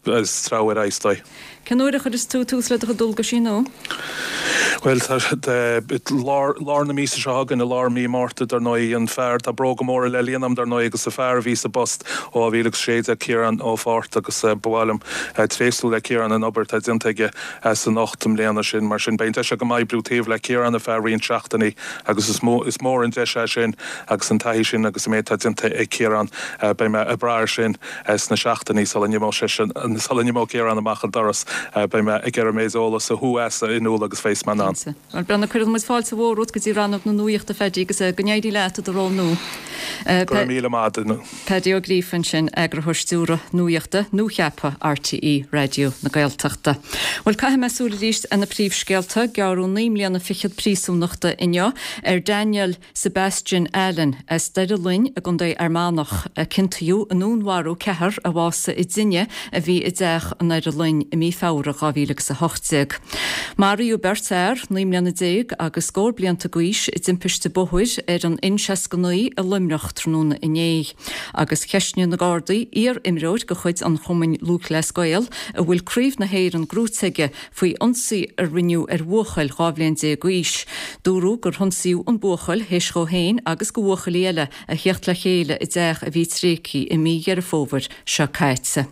treabhadh ar aghaidh is dóigh. Cén uair a chuireas tú tús le do chuid dualgaisí nua? Bhuel, tá, lár, lár na míosa seo chugainn, i lár mí Márta, dar ndóigh, an fear, tá bróga móra le líonadh agam, dar ndóigh, agus an fear a bhí sa bpost ó 2016, Ciarán Ó Fátharta, agus ba mhaith liom tréaslú le Ciarán an obair atá déanta aige san 8 mbliana sin. Mar sin, beidh an deis agam oibriú taobh le Ciarán ar feadh roinnt seachtainí agus is mó, is mór an deis é sin agus an taithí sin agus an méid atá déanta ag Ciarán, beidh mé ag brath air sin. Sna seachtainí sula n-imeoidh seisean, sula n-imeoidh Ciarán amach an doras, beidh mé ag iarraidh an méid eolas a shú as a Nuala agus bheas mé in ann. Slán. Cinnte. Bhuel, Breandán, cuireann muid fáilte mhór romhat go dtí rannóg na nuaíochta, Phaddy, agus go n-éirí leat i do ról nua. Go raibh míle maith agat. Paddy Ó Gríofa ansin, Eagarthóir Stiúrtha Nuaíochta nuacheaptha RTÉ Raidió na Gaeltachta. Bhuel, caithfidh mé súil arís ar na príomhscéalta. Gearradh 9 mbliana fichead príosúnachta inniu ar Daniel Sebastian Allen as Doire Fhloinn i gContae Fhear Manach, a ciontaíodh i ndúnmharú ceathrar a bhásaigh i dtine a bhí i dteach i nDoire Fhloinn i mí Feabhra 2018. Maraíodh beirt fhear, 19 mbliana agus scór blianta d'aois, i dtimpiste bóthair ar an N69 i Luimneach tráthnóna inné. Agus cheistnigh na Gardaí iar-imreoir de chuid an Chumainn Lúthchleas Gael a bhfuil Craobh na hÉireann gnóite aige faoi ionsaí a rinneadh ar bhuachaill 12 bhliain d'aois. Dúradh gur hionsaíodh an buachaill théis dhó féin agus do bhuachaillí eile a theacht le chéile i dteach a bhí tréigthe i mí Dheireadh Fómhair seo caite.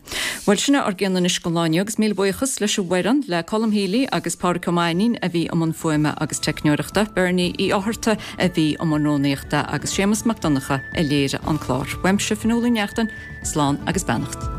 Bhuel, sin é ár gcion anois don lá inniu agus míle buíochas leis an bhfoireann, le Colm Healy agus Pádraic Ó Mainnín a bhí i mbun fuaime agus teicneoireachta, Bernie Uí Fhátharta a bhí i mbun rúnaíochta agus Séamus Mac Donncha a léirigh an clár. Uaimse, Fionnuala Ní Neachtain, slán agus beannacht.